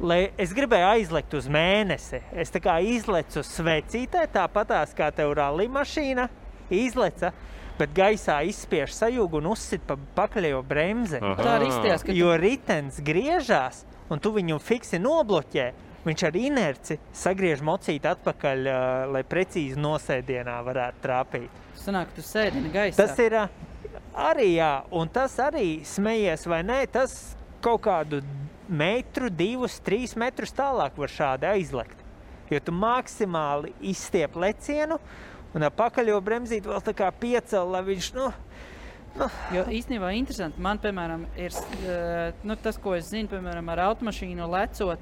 lai es gribēju aizlekt uz mēnesi. Es tā kā izlecu svecītē, tāpatās kā tev rallija mašīna izleca, bet gaisā izspiež sajūgu un uzsit pa pakaļējo bremzi. Tā arī izties, ka jo ritens griežās un tu viņu fiksi nobloķē. Viņš ar inerci sagriež mocīti atpakaļ, lai precīzi nosēdienā varētu trāpīt. Sanāk, tu sēdini gaisā. Tas ir arī, un tas arī smejies vai nē, tas kaut kādu metru, 2, 3 metrus tālāk var šādi aizlekt. Jo tu maksimāli izstiep lecienu un ar pakaļo bremzīt vēl tā kā piecel, lai viņš, Jo īstenībā interesanti, man, piemēram, ir tas, ko es zinu, piemēram, ar automašīnu lecot,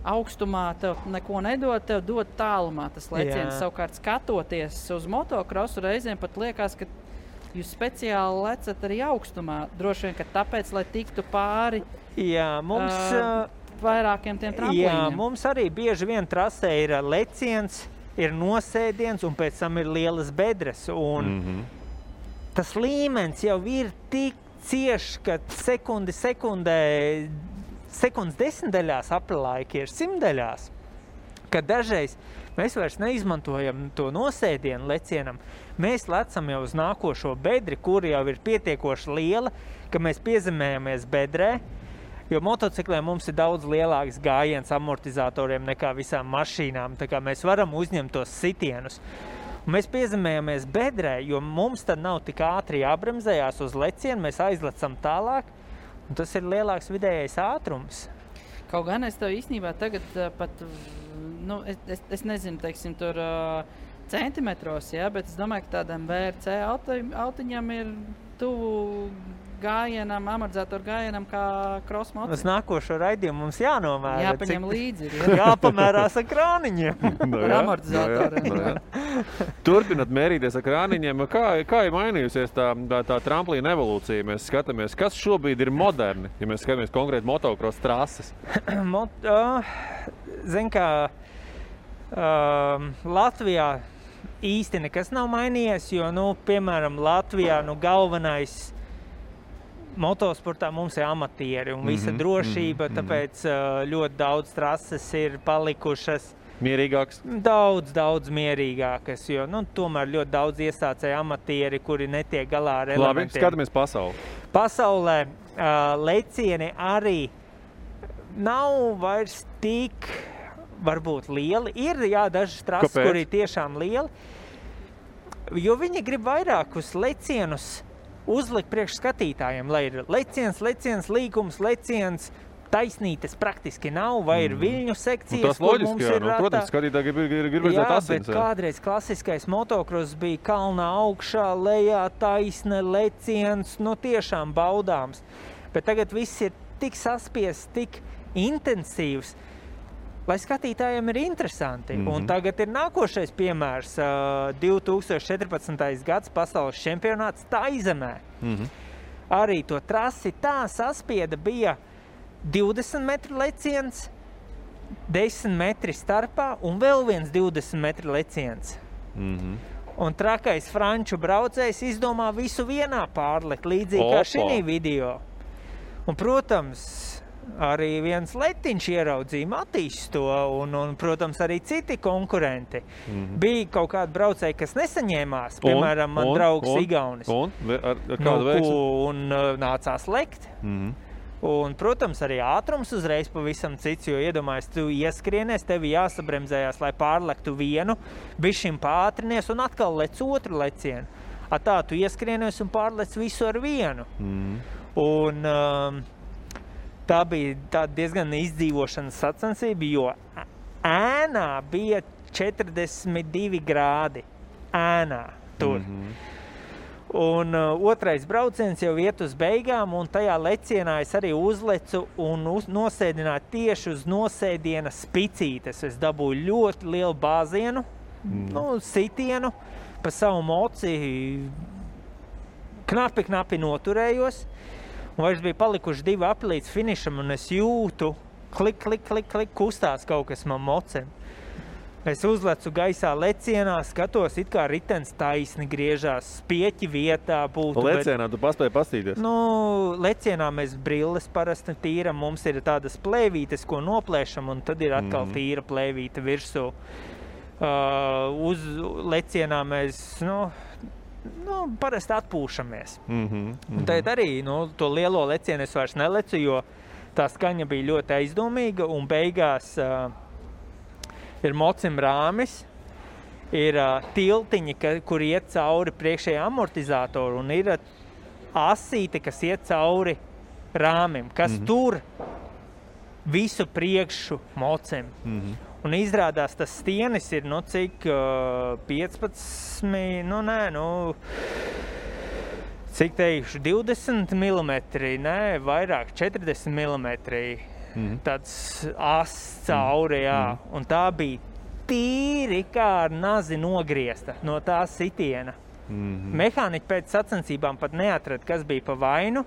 augstumā tev neko nedod, tev dod tālumā tas leciens. Savukārt skatoties uz motokrosu reizēm pat liekas, ka jūs speciāli lecat arī augstumā. Droši vien, ka tāpēc, lai tiktu pāri vairākiem tiem tramplīniem. Mums arī bieži vien trasē ir leciens, ir nosēdiens un pēc tam ir lielas bedres. Un tas līmenis jau ir tik cieši, ka sekundes desmitdaļās aplaiki ir simtdaļās, ka dažreiz mēs vairs neizmantojam to nosēdienu lecienam. Mēs lecam jau uz nākošo bedri, kur jau ir pietiekoši liela, ka mēs piezemējamies bedrē, jo motocikliem mums ir daudz lielāks gājiens amortizatoriem nekā visām mašīnām, tā kā mēs varam uzņemt tos sitienus. Un mēs piezemējamies bedrē, jo mums tad nav tik ātri jābremzējās uz lecienu, mēs aizlecam tālāk, un tas ir lielāks vidējais ātrums. Kaut gan es tev īstenībā tagad pat, es nezinu, teiksim, tur centimetros, bet es domāju, ka tādam VRC autiņam ir tuvu gājienam, amortizatoru gājienam kā cross motor. Uz nākošo raidījumu mums jānomēra. Jāpaņem līdzi. Jāpamērās ar krāniņiem. Ar amortizatoriem. Turpinot mērīties ar krāniņiem, kā ir mainījusies tā tramplīna evolūcija? Mēs skatāmies, kas šobrīd ir moderni, ja mēs skatāmies konkrēti motocross trases? Zin kā, Latvijā īsti nekas nav mainījies, jo, piemēram, Latvijā galvenais motosportā mums ir amatieri un visa drošība, tāpēc ļoti daudz trases ir palikušas mierīgākas. Daudz mierīgākas, jo tomēr ļoti daudz iesācēja amatieri, kuri netiek galā ar elementiem. Labi, skatāmies pasauli. Pasaulē lecieni arī nav vairs tik varbūt lieli. Ir, dažas trases, kuri tiešām lieli, jo viņi grib vairākus lecienus uzlikt priekš skatītājiem, lai ir leciens, līkums, leciens, taisnītes praktiski nav, vai ir viļņu sekcijas, tas loģiski, protams, skatītāji grib redzēt asins. Bet kādreiz klasiskais motocross bija kalnā augšā, lejā, taisne, leciens, tiešām baudāms. Bet tagad viss ir tik saspiests, tik intensīvs, lai skatītājiem ir interesanti. Un tagad ir nākošais piemērs, 2014. gads pasaules čempionāts Taizemē. Arī to trasi tā saspieda bija 20 metru leciens, 10 metri starpā un vēl viens 20 metru leciens. Un trakais franču braucējs izdomā visu vienā pārlekt, līdzīgi kā šī video. Un, protams, arī viens letiņš ieraudzīja Matīs to un, protams, arī citi konkurenti. Bija kaut kādi braucēji, kas nesaņēmās, piemēram, man draugs Igaunis. Ar kādu veiksmi? Un nācās lekt. Un, protams, arī ātrums uzreiz pavisam cits, jo iedomājies, tu ieskrienies, tevi jāsabremzējās, lai pārlektu vienu, bišķim pātrinies un atkal lec otru lecienu. Tā tu ieskrienies un pārlec visu ar vienu. Un tā bija tāda diezgan izdzīvošanas sacensība, jo ēnā bija 42 grādi. Ēnā tur. Un otrais brauciens jau iet uz beigām, un tajā lecienā es arī uzlecu un nosēdināju tieši uz nosēdiena spicītes. Es dabūju ļoti lielu bāzienu, sitienu, pa savu moci knapi noturējos. Un vairs bija palikuši 2 apli līdz finišam, un es jūtu, klik, kustās kaut kas man mocem. Es uzlecu gaisā lecienā, skatos, it kā ritens taisni griežās, spieķi vietā būtu. Lecienā tu paspēji pastīties? Lecienā mēs brilles parasti tīram, mums ir tādas plēvītes, ko noplēšam, un tad ir atkal tīra plēvīte virsū. Uz lecienā mēs, parasti atpūšamies. Un tad arī, to lielo lecienu es vairs nelecu, jo tā skaņa bija ļoti aizdomīga, un beigās ir mocim rāmis, ir tiltiņi, kur iet cauri priekšējā amortizātoru, un ir asīte, kas iet cauri rāmim, kas tur visu priekšu mocim. Un izrādās, tas stienis ir, cik 15, cik teikšu, 20 millimetri, vairāk, 40 millimetri. Tāds ass cauri, jā. Un tā bija tīri kā ar nazi nogriezta no tā sitiena. Mehāniķi pēc sacensībām pat neatrada, kas bija pa vainu.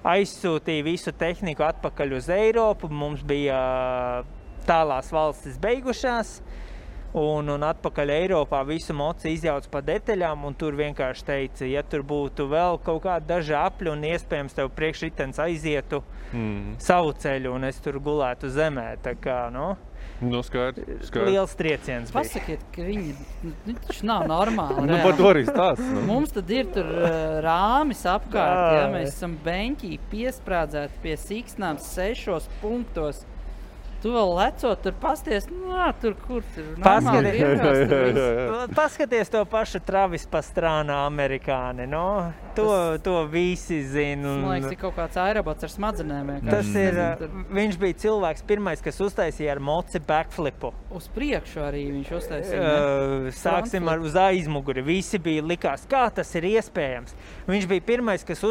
Aizsūtīja visu tehniku atpakaļ uz Eiropu. Mums bija tālās valstis beigušās. Un atpakaļ Eiropā visu moci izjauc pa detaļām, un tur vienkārši teica, ja tur būtu vēl kaut kādi daži apļi, un iespējams tev priekšritens aizietu savu ceļu, un es tur gulētu zemē. Tā kā, skaidrs. Liels trieciens bija. Pasakiet, ka viņi taču nav normāli. Par to arī stāst. Mums tad ir tur rāmis apkārt, mēs esam beņķī piesprādzēti pie siksnām 6 punktos. Tu vēl lecot, tur pasties, tur kur tur normāli vienkārši. Paskaties to pašu Travis Pastrāna amerikāni, to visi zina. Man liekas, ir kaut kāds aerobots ar smadzenēm. Tas ir, viņš bija cilvēks pirmais, kas uztaisīja ar moci backflipu. Uz priekšu arī viņš uztaisīja. Sāksim uz aizmuguri. Visi bija likās, kā tas ir iespējams. Viņš bija pirmais, kas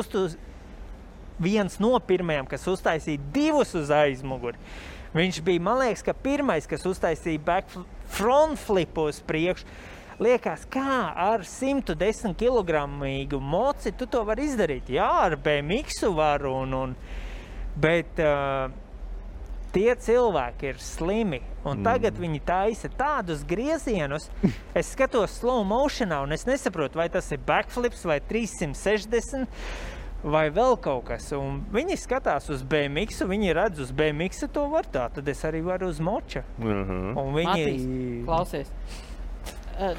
viens no pirmajiem, kas uztaisīja 2 uz aizmuguri. Viņš bija, man liekas, ka pirmais, kas uztaisīja front flipu uz priekšu. Liekas, kā ar 110 kilogramīgu moci tu to var izdarīt? Jā, ar BMX-u varu, bet tie cilvēki ir slimi. Un tagad viņi taisa tādus griezienus. Es skatos slow motionā, un es nesaprotu, vai tas ir backflips vai 360. Vai vēl kaut kas, un viņi skatās uz BMX-u, viņi redz uz BMX-u to var tā, tad es arī varu uz moča. Un viņi... Matīs, klausies.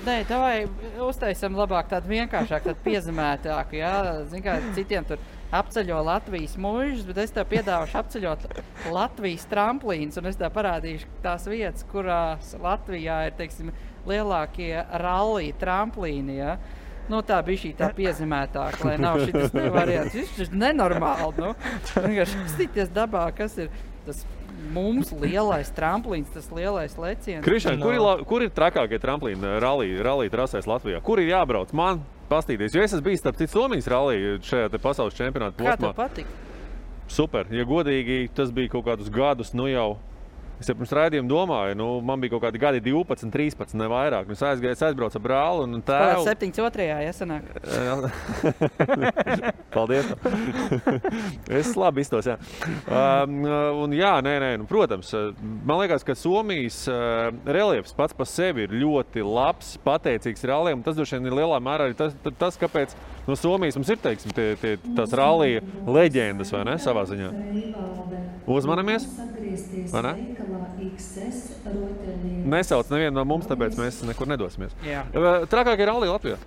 Davai uztaisam labāk tādu vienkāršāk, tādu piezemētāku, jā? Zin kā, citiem tur apceļo Latvijas mužas, bet es tev piedāvašu apceļot Latvijas tramplīns, un es tev parādīšu tās vietas, kurās Latvijā ir, teiksim, lielākie rallija tramplīni, jā? Tā bija šī tā piezemētāka, lai nav šitas variants. Viņš ir nenormāli, vienkārši skatīties dabā, kas ir tas mums lielais tramplīns, tas lielais leciens. Krišān, kur ir trakākie tramplīni rallija trasēs Latvijā? Kur ir jābrauc? Man pastīties, jo es esmu bijis starp citu Somijas rallija šajā te pasaules čempionāta posmā. Kā tev patika? Super, ja godīgi, tas bija kaut kādus gadus, jau. Es jau pirms raidījuma domāju, man bija kaut kādi gadi 12, 13, ne vairāk. Es aizbraucu ar brāli un tēvu. 72. jāsanāk. Paldies. Es labi iztos, jā. Un jā, protams, man liekas, ka Somijas reliefs pats par sevi ir ļoti labs, pateicīgs ralliem. Tas droši vien ir lielā mērā arī tas, kāpēc no Somijas mums ir, teiksim, tās rallija leģendas, vai ne, savā ziņā. Uzmanamies, vai ne? Nesauc nevienu no mums, tāpēc mēs nekur nedosimies. Trakākie rallija Latvijā?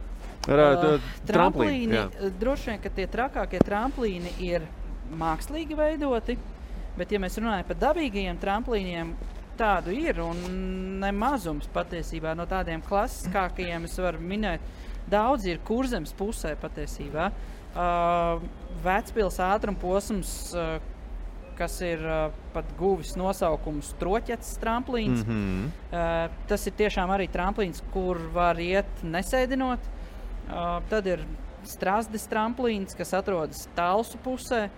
Tramplīni, droši vien, ka tie trakākie tramplīni ir mākslīgi veidoti, bet ja mēs runājam par dabīgajiem tramplīniem, tādu ir un nemazums patiesībā no tādiem klasiskākajiem es varu minēt daudz ir Kurzemes pusē patiesībā. Vecpils ātrumposms, kas ir pat guvis nosaukumus Troķets tramplīns. Tas ir tiešām arī tramplīns, kur var iet nesēdinot. Tad ir Strasdes tramplīns, kas atrodas Talsu pusē.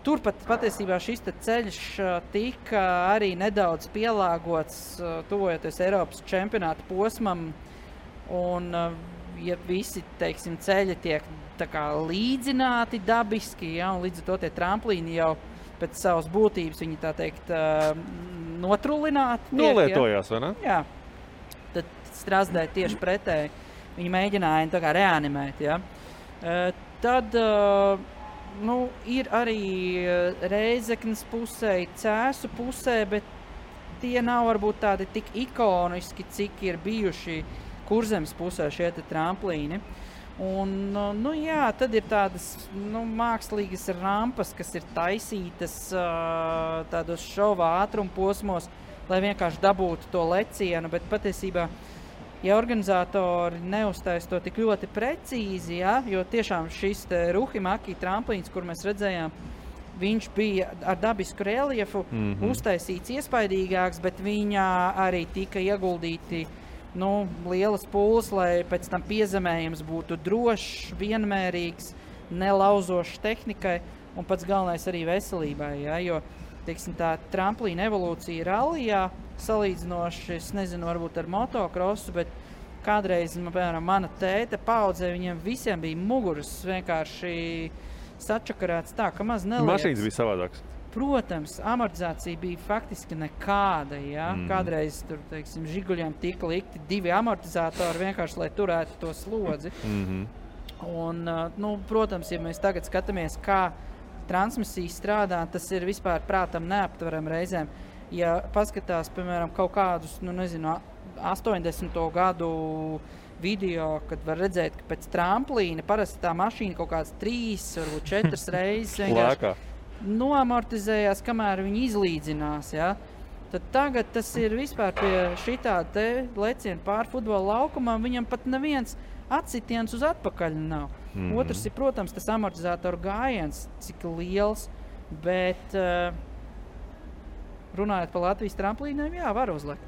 Turpat patiesībā šis ceļš tika arī nedaudz pielāgots, tuvojoties Eiropas čempionāta posmam. Un, ja visi, teiksim, ceļi tiek tā kā līdzināti dabiski, ja, un līdz ar to tie tramplīni jau pēc savas būtības, viņi tā teikt, notrullināti. Nolietojās, vai ne? Jā. Tad Strasdē tieši pretēji. Viņi mēģināja tā kā reanimēt, ja. Tad ir arī Reizeknes pusē, Cēsu pusē, bet tie nav varbūt tādi tik ikoniski, cik ir bijuši Kurzemes pusē šie tramplīni. Un, tad ir tādas mākslīgas rampas, kas ir taisītas tādos šova ātrumposmos, lai vienkārši dabūtu to lecienu, bet patiesībā, ja organizatori neuztais to tik ļoti precīzi, ja, jo tiešām šis Ruhimaki tramplīns, kur mēs redzējām, viņš bija ar dabisku reliefu uztaisīts iespaidīgāks, bet viņā arī tika ieguldīti lielas pūles, lai pēc tam piezemējums būtu drošs, vienmērīgs, nelauzošs tehnikai un pats galvenais arī veselībai, ja, jo, teiksim, tā tramplīna evolūcija rallijā salīdzinoši, es nezinu, varbūt ar motokrosu, bet kādreiz, piemēram, mana tēta paudzē, viņiem visiem bija muguras vienkārši sačakarēts tā, ka maz neliekas. Mašīnas bija savādāks. Protams, amortizācija bija faktiski nekāda, ja? Kādreiz tur, teiksim, Žiguļiem tika likti 2 amortizatori vienkārši, lai turētu to slodzi. Un, protams, ja mēs tagad skatāmies, kā transmisija strādā, tas ir vispār prātam neaptveram reizēm. Ja paskatās, piemēram, kaut kādus, 80. gadu video, kad var redzēt, ka pēc tramplīna parasti tā mašīna kaut kāds 3, varbūt 4 reizes vienkārši noamortizējās, kamēr viņi izlīdzinās, ja? Tad tagad tas ir vispār pie šitā te leciena pār futbola laukumam, viņam pat neviens atsitiens uz atpakaļ nav. Otrs ir, protams, tas amortizatoru gājiens, cik liels, bet runājot par Latvijas tramplīniem, jā, var uzlikt.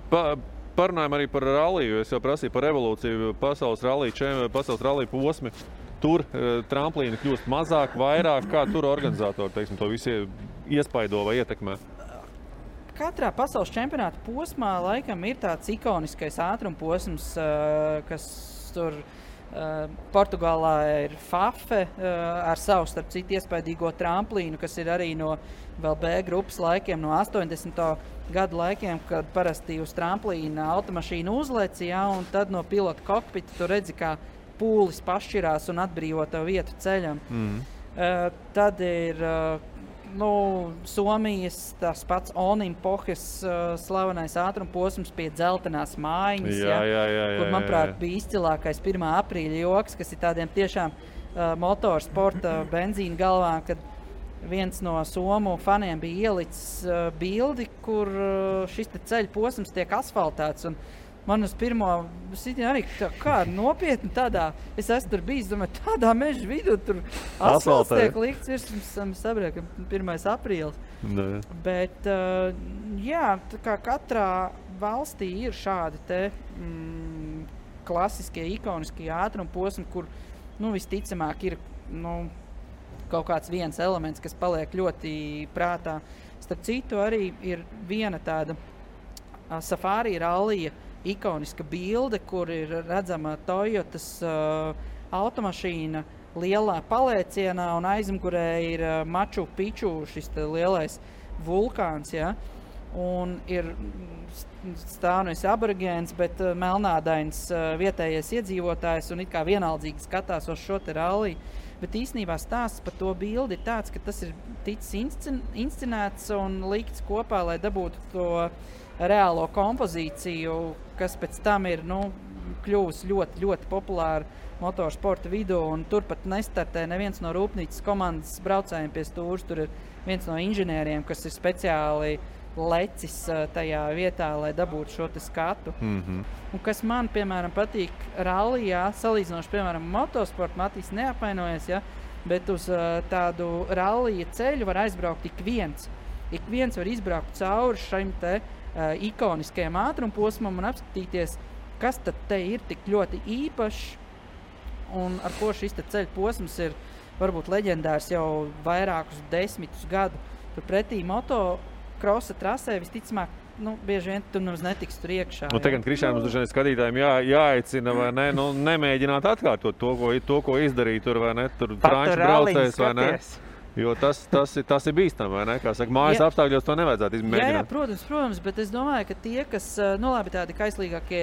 Parunājam arī par ralliju, es jau prasīju par evolūciju, pasaules rallija posmi. Tur tramplīni kļūst mazāk, vairāk, kā tur organizatori, teiksim, to visi iespaido vai ietekmē? Katrā pasaules čempionāta posmā laikam ir tāds ikoniskais ātrumposms, kas tur Portugālā ir Fafe ar savu, starp citu, iespaidīgo tramplīnu, kas ir arī no vēl B grupas laikiem, no 80. gadu laikiem, kad parasti uz tramplīna automašīna uzlec, ja, un tad no pilota kokpita tu redzi, kā pūlis pašķirās un atbrīvo tev vietu ceļam. Tad ir Somijas tas pats Onimpohes slavenais ātrumposms pie dzeltenās mājiņas, kur, manuprāt, bija izcilākais 1. aprīļa joks, kas ir tādiem tiešām motorsporta benzīna galvām, kad viens no somu faniem bija ielicis bildi, kur šis ceļa posms tiek asfaltēts. Un man uz pirmo sitienu arī kā nopietni tādā, es esmu tur bijis, domāju, tādā meža vidū, tur asfalts tiek likts virs, sabrēk, 1. aprīlis. Bet, jā, tā kā katrā valstī ir šādi te klasiskie, ikoniskie ātrumposmi, kur, visticamāk ir, kaut kāds viens elements, kas paliek ļoti prātā. Starp citu, arī ir viena tāda Safari rallija ikoniska bilde, kur ir redzama Toyotas automašīna lielā palēcienā un aizmugurē ir Machu Picchu, šis lielais vulkāns, ja? Un ir stāvnis aborigēns, bet melnādains vietējais iedzīvotājs un it kā vienaldzīgi skatās uz šo te ralliju. Bet īstenībā stāsts par to bildi ir tāds, ka tas ir ticis inscenēts un likts kopā, lai dabūtu to reālo kompozīciju, kas pēc tam ir kļuvusi ļoti, ļoti populāra motorsporta vidū, un turpat nestartē neviens no rūpnīcas komandas braucējiem pie stūres. Tur ir viens no inženieriem, kas ir speciāli lecis tajā vietā, lai dabūtu šo te skatu. Un kas man, piemēram, patīk rallijā, salīdzinoši, piemēram, motosportu, Matīs neapvainojas, ja, bet uz tādu rallija ceļu var aizbraukt ik viens. Ik viens var izbraukt cauri šim te ikoniskajam ātrumposmam un apskatīties, kas tad te ir tik ļoti īpašs un ar ko šis te ceļu posms ir varbūt leģendārs jau vairākus 10 gadu. Turpretī motokrosa trasē visticamāk, bieži vien tu nemaz netiks tur iekšā. Tagad Krišānam mums dažreiz skatītājiem jāaicina, vai ne, nemēģināt atkārtot to, ko izdarīt tur, vai ne, tur franču braucējs, vai ne? Jo tas ir bīstam, vai ne? Kā saka, mājas apstākļos to nevajadzētu izmēģināt. Jā, protams, bet es domāju, ka tie, kas, labi, tādi kaislīgākie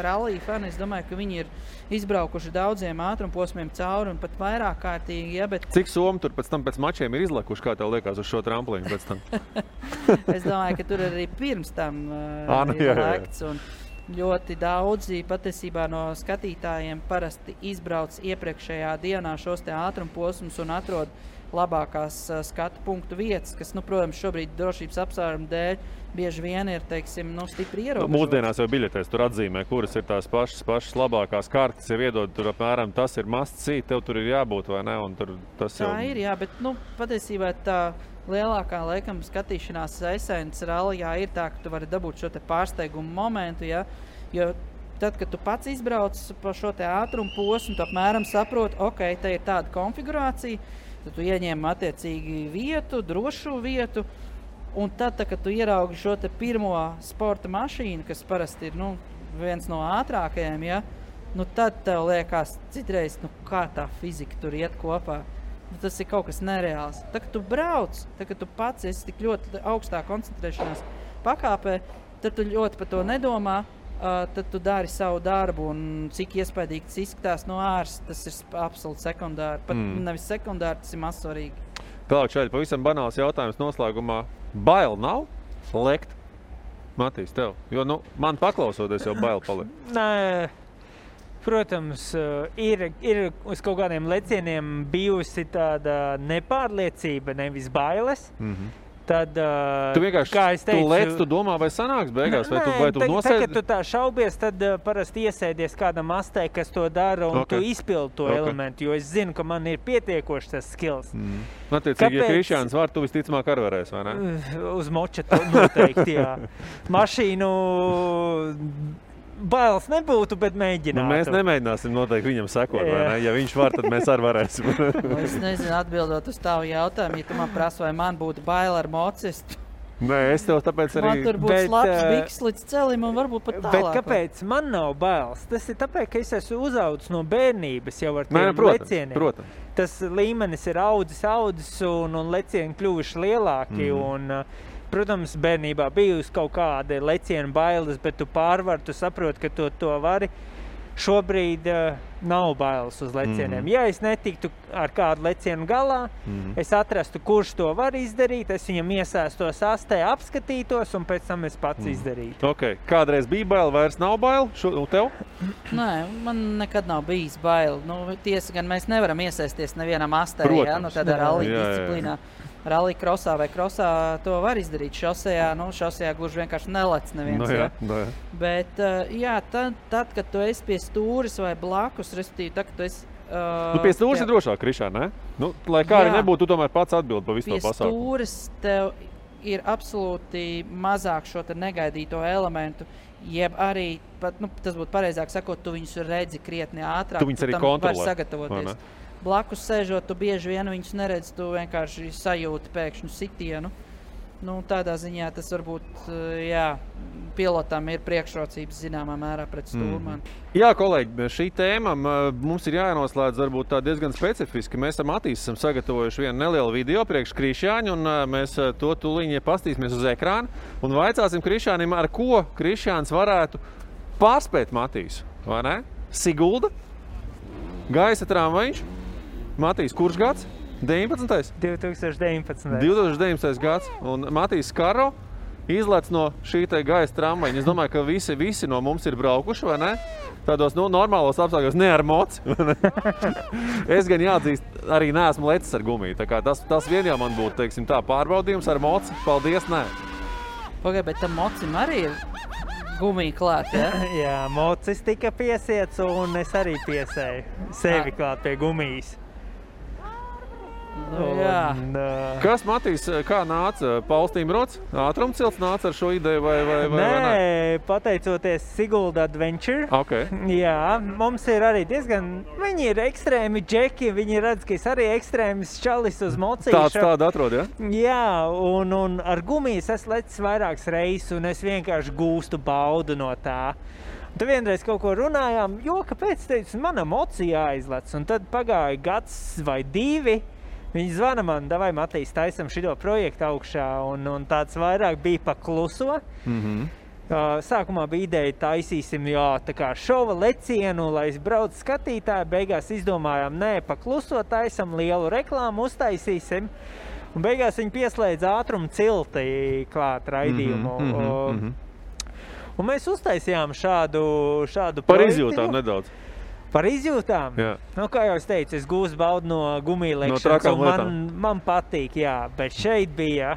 rallija fani, es domāju, ka viņi ir izbraukuši daudziem ātrumposmiem cauri un pat vairāk kārtīgi, ja, bet... Cik somi tur pēc mačiem ir izlekuši, kā tev liekas, uz šo tramplīnu pēc tam? Es domāju, ka tur arī pirms tam ir lekts un ļoti daudzi patiesībā no skatītājiem parasti izbrauc iepriekšējā dienā šos te ātrumposmus un atrod labākās skatu punktu vietas, kas, protams, šobrīd drošības apsvērumu dēļ bieži vien ir, teiksim, stipri ierobežotas. Mūsdienās jau biļetēs tur atzīmē, kuras ir tās pašas labākās kartes, jau iedod tur apmēram, tas ir must see, tev tur ir jābūt, vai ne? Un tur tas tā jau... ir, jā, bet, patiesībā tā lielākā, laikam, skatīšanās esence rallijā ir tā, ka tu vari dabūt šo te pārsteigumu momentu, ja? Jo tad, kad tu pats izbrauc pa šo te ātrumu posmu, tu apmēram saproti, ok, te ir tāda konfigurācija, tad tu ieņem attiecīgi vietu, drošu vietu, un tad, kad tu ieraugi šo te pirmo sporta mašīnu, kas parasti ir, viens no ātrākajiem, ja, tad tev liekas citreiz, kā tā fizika tur iet kopā. Tas ir kaut kas nereāls. Tad, kad tu brauc, tad, kad tu pats esi tik ļoti augstā koncentrēšanās pakāpē, tad tu ļoti par to nedomā, tad tu dari savu darbu, un cik iespaidīgi tas izskatās no āras, tas ir absolūti sekundāri. Pat nevis sekundāri, tas ir mazsvarīgi. Tālāk šeit pavisam banāls jautājums noslēgumā. Bail nav lekt? Matīs, tev? Jo, man paklausoties jau bail paliek. Nē, protams, ir uz kaut kādiem lecieniem bijusi tāda nepārliecība, nevis bailes. Tad, tu vienkārši, kā es teicu, tu lec, tu domā, vai sanāks beigās, vai tu nosēdi? Kad tu tā šaubies, tad parasti iesēdies kādam astē, kas to dara, un tu izpildi to elementu, jo es zinu, ka man ir pietiekoši tas skills. Attiecīgi, ja Krišjāns var, tu visticamāk arī varēs, vai ne? Uz moča noteikti, jā. Mašīnu bailes nebūtu, bet mēģinātu. Mēs nemēģināsim noteikti viņam sekot, vai ne? Ja viņš var, tad mēs arī varēsim. Es nezinu, atbildot uz tavu jautājumu, ja tu man prasa, vai man būtu baila ar mocistu. Nē, es tev tāpēc arī... Man tur būtu slapts biks līdz celim un varbūt pat tālāk. Bet kāpēc man nav bailes? Tas ir tāpēc, ka es esmu uzaudzis no bērnības jau ar tiem lecieniem. Protams. Tas līmenis ir audzis un lecieni kļuvuši lielāki un... Protams, bērnībā bijusi kaut kāda lecienu bailes, bet tu pārvari, tu saproti, ka to vari. Šobrīd nav bailes uz lecieniem. Ja es netiktu ar kādu lecienu galā, es atrastu, kurš to var izdarīt, es viņam iesēstos astē, apskatītos un pēc tam es pats izdarītu. Ok, kādreiz bija baila, vairs nav baila? Tev? Nē, man nekad nav bijis baila. Tiesa gan mēs nevaram iesēsties nevienam astē, tādā rallija disciplīnā. Rallija krosā vai krosā to var izdarīt. Šosejā gluži vienkārši nelec neviens. Bet, tad, kad tu esi pie stūris vai blakus, respektīvi, tad, kad tu esi... pie stūris ir drošāk, Krišā, ne? Lai kā arī nebūtu, tu tomēr pats atbildi pa visu to pasākumu. Pie stūris tev ir absolūti mazāk šo te negaidīto elementu, jeb arī, tas būtu pareizāk sakot, tu viņus redzi krietni ātrāk. Tu viņus arī kontrolē. Var sagatavoties. Blakus sēžot, tu bieži vien viņus neredzi, tu vienkārši sajūti pēkšņu sitienu. Tādā ziņā tas varbūt, pilotam ir priekšrocības zināmā mērā pret stūrmanu. Jā, kolēģi, šī tēma mums ir jānoslēdz varbūt tā diezgan specifiski. Mēs ar Matīs esam sagatavojuši vienu nelielu video priekš Krišjāņu, un mēs to tūlīņi pastīsimies uz ekrānu un vaicāsim Krišjānim, ar ko Krišjāns varētu pārspēt Matīsu, vai ne? Sigulda, gaisa tramvajiņš. Matīs, kurš gads? 19. 2019. 2019. gads. Un Matīs Skaro izlec no šī te gaisa tramvajiņa. Es domāju, ka visi no mums ir braukuši, vai ne? Tādos normālos apstākļos, ne ar moci. Es gan jāatzīst, arī neesmu lecis ar gumiju. Tā kā tas vien jau man būtu, teiksim tā, pārbaudījums ar moci. Paldies, nē. Pagaid, bet tam mocim arī ir gumija klāt, ja? Jā, mocis tika piesiets un es arī piesēju sevi klāt pie gumijas. Nu, jā. Kas, Matīs, kā nāca? Pauls Timrots? Ātrumcilts nāca ar šo ideju vai Nē, pateicoties Sigulda Adventure. Okay. Jā, mums ir arī diezgan, viņi ir ekstrēmi džeki, viņi redz, ka es arī ekstrēmis čalis uz mocīšu. Tādu atrod, ja? Jā, un ar gumijas es lecis vairākas reizes un es vienkārši gūstu baudu no tā. Un tad vienreiz kaut ko runājām, jo kāpēc teicu, mana mocija jāizlec. Un tad pagāja gads vai 2. Viņi zvana man, davai Matīs, taisam šito projektu augšā, un tāds vairāk bija pa kluso. Sākumā bija ideja, taisīsim, tā kā šova lecienu, lai es braucu skatītāju, beigās izdomājām, nē, pa kluso taisam, lielu reklāmu uztaisīsim, un beigās viņi pieslēdz ātrumu cilti klāt raidījumu. Un mēs uztaisījām šādu projektu. Par izjūtām nedaudz. Par izjūtām? Jā. Nu, kā jau es teicu, es gūstu baudu no gumija lekšanas, un man patīk, jā, bet šeit bija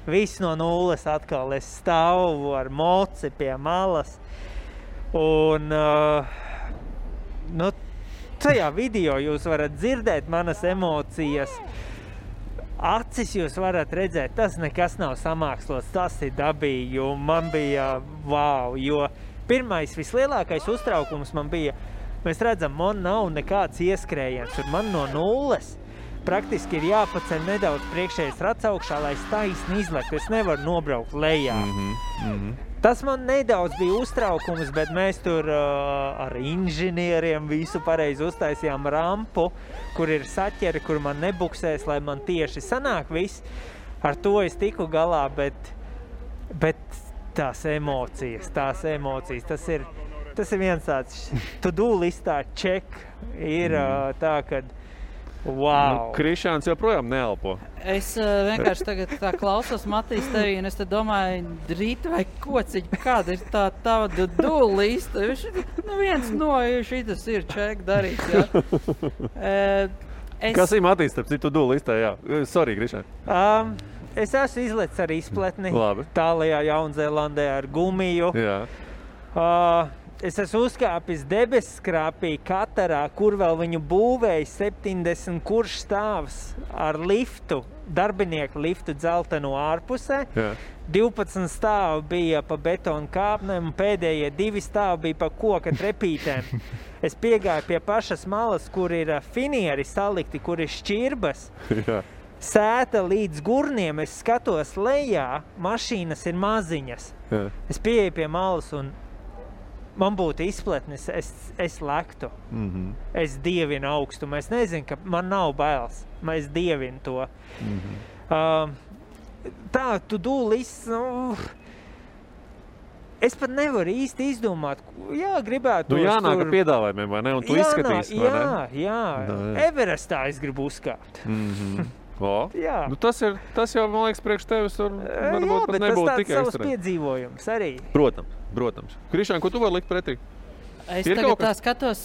viss no nulles atkal. Es stāvu ar moci pie malas, un tajā video jūs varat dzirdēt manas emocijas, acis jūs varat redzēt, tas nekas nav samākslots, tas ir dabīgi, un man bija wow, jo pirmais vislielākais uztraukums man bija, mēs redzam, man nav nekāds ieskrējiens, un man no nulles praktiski ir jāpaceļ nedaudz priekšējais rats augšā, lai es taisni izlektu. Es nevaru nobraukt lejā. Tas man nedaudz bija uztraukums, bet mēs tur ar inženieriem visu pareizi uztaisījām rampu, kur ir saķeri, kur man nebuksēs, lai man tieši sanāk viss. Ar to es tiku galā, bet tās emocijas, tas ir viens tāds to-do listā check ir tā, kad wow. Krišāns joprojām neelpo. Es vienkārši tagad tā klausos Matīs tevī, un es te domāju, drīt vai kociņ, kāda ir tā tava to-do lista? Viens no šitas ir check darīts, jā. Kas ir Matīs, starp citu to-do listā, jā? Sorry, Krišān. Es esmu izlecis ar izpletni. Labi. Tālajā Jaunzēlandē ar gumiju. Jā. Es esmu uzkāpis debesskrāpī Katarā, kur vēl viņu būvēja 70 kurš stāvs ar liftu, darbinieku liftu dzelteno ārpusē. Jā. 12 stāvi bija pa betonu kāpnēm, un pēdējie 2 stāvi bija pa koka trepītēm. Es piegāju pie pašas malas, kur ir finieri salikti, kur ir šķirbas. Jā. Sēta līdz gurniem, es skatos lejā, mašīnas ir maziņas. Jā. Es pieeju pie malas un man būtu izpletnis, es lektu. Es dievinu augstumu. Es nezinu, ka man nav bailes. Es dievinu to. Tā, to-do list, es pat nevaru īsti izdomāt. Jā, gribētu. Jānāk ar piedāvājumiem, vai ne? Un tu izskatīsi, vai ne? Jā. Everestā es gribu uzkāpt. Jā. Tas jau, man liekas, priekš tevis varbūt pat nebūtu tikai ekstrēms. Jā, bet tas tāds savs ekstrēms. piedzīvojums arī. Protams. Krišān, ko tu vari likt pretī? Es tagad tā skatos,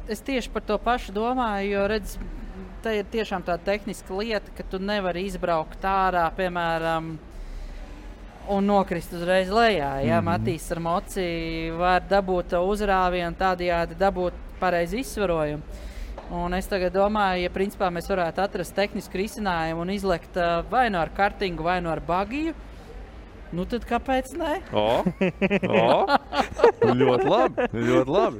es tieši par to pašu domāju, jo redz, tā ir tiešām tā tehniska lieta, ka tu nevari izbraukt ārā, piemēram, un nokrist uzreiz lejā. Ja? Matīs ar moci var dabūt uzrāvienu, tādējādi dabūt pareizi izsvarojumu. Un es tagad domāju, ja principā mēs varētu atrast tehnisku risinājumu un izlekt vai no ar kartingu, vai no ar bagiju, nu tad kāpēc ne? Ļoti labi.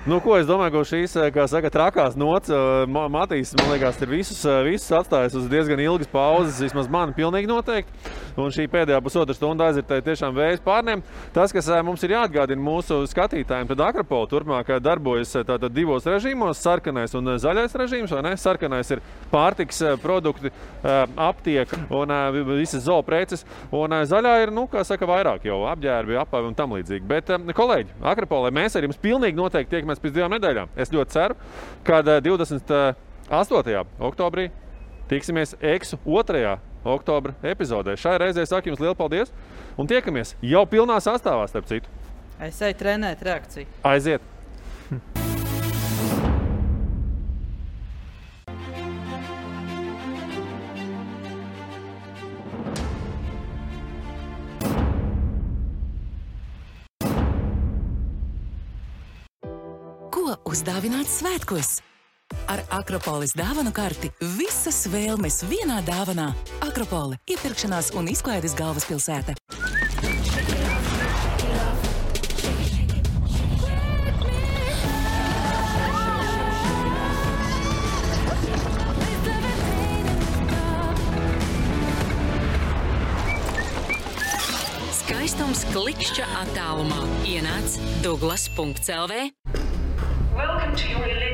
Nu, ko es domāju, ka šīs, kā saka, trakās nots, Matīs, man liekas, ir visus atstājis uz diezgan ilgas pauzes, vismaz man pilnīgi noteikti. Un šī pēdējā pusotra stunda aizritēja tiešām vējas pārniem. Tas, kas mums ir jāatgādina mūsu skatītājiem, tad Akropola turpmāk darbojas tātad 2 režīmos, sarkanais un zaļais režīms, vai ne? Sarkanais ir pārtiks produkti, aptieka un visas zoopreces, un zaļā ir, kā saka, vairāk jau apģērbi, apavi un tam līdzīgi. Bet, kolēģi, Akropolē mēs ar jums pilnīgi noteikti tiekamies pēc 2 nedēļām. Es ļoti ceru, ka 28. oktobrī tiksimies Eksu 2. oktobra epizodē. Šai reizē saku jums lielu paldies un tiekamies jau pilnā sastāvā, starp citu. Es eju trenēt reakciju. Aiziet! uzdāvināt svētkos. Ar Akropolis dāvanu karti visas vēlmes vienā dāvanā. Akropole – iepirkšanās un izklaides galvaspilsēta. Skaistums klikšķa attālumā. Ienāc Douglas.lv. Welcome to your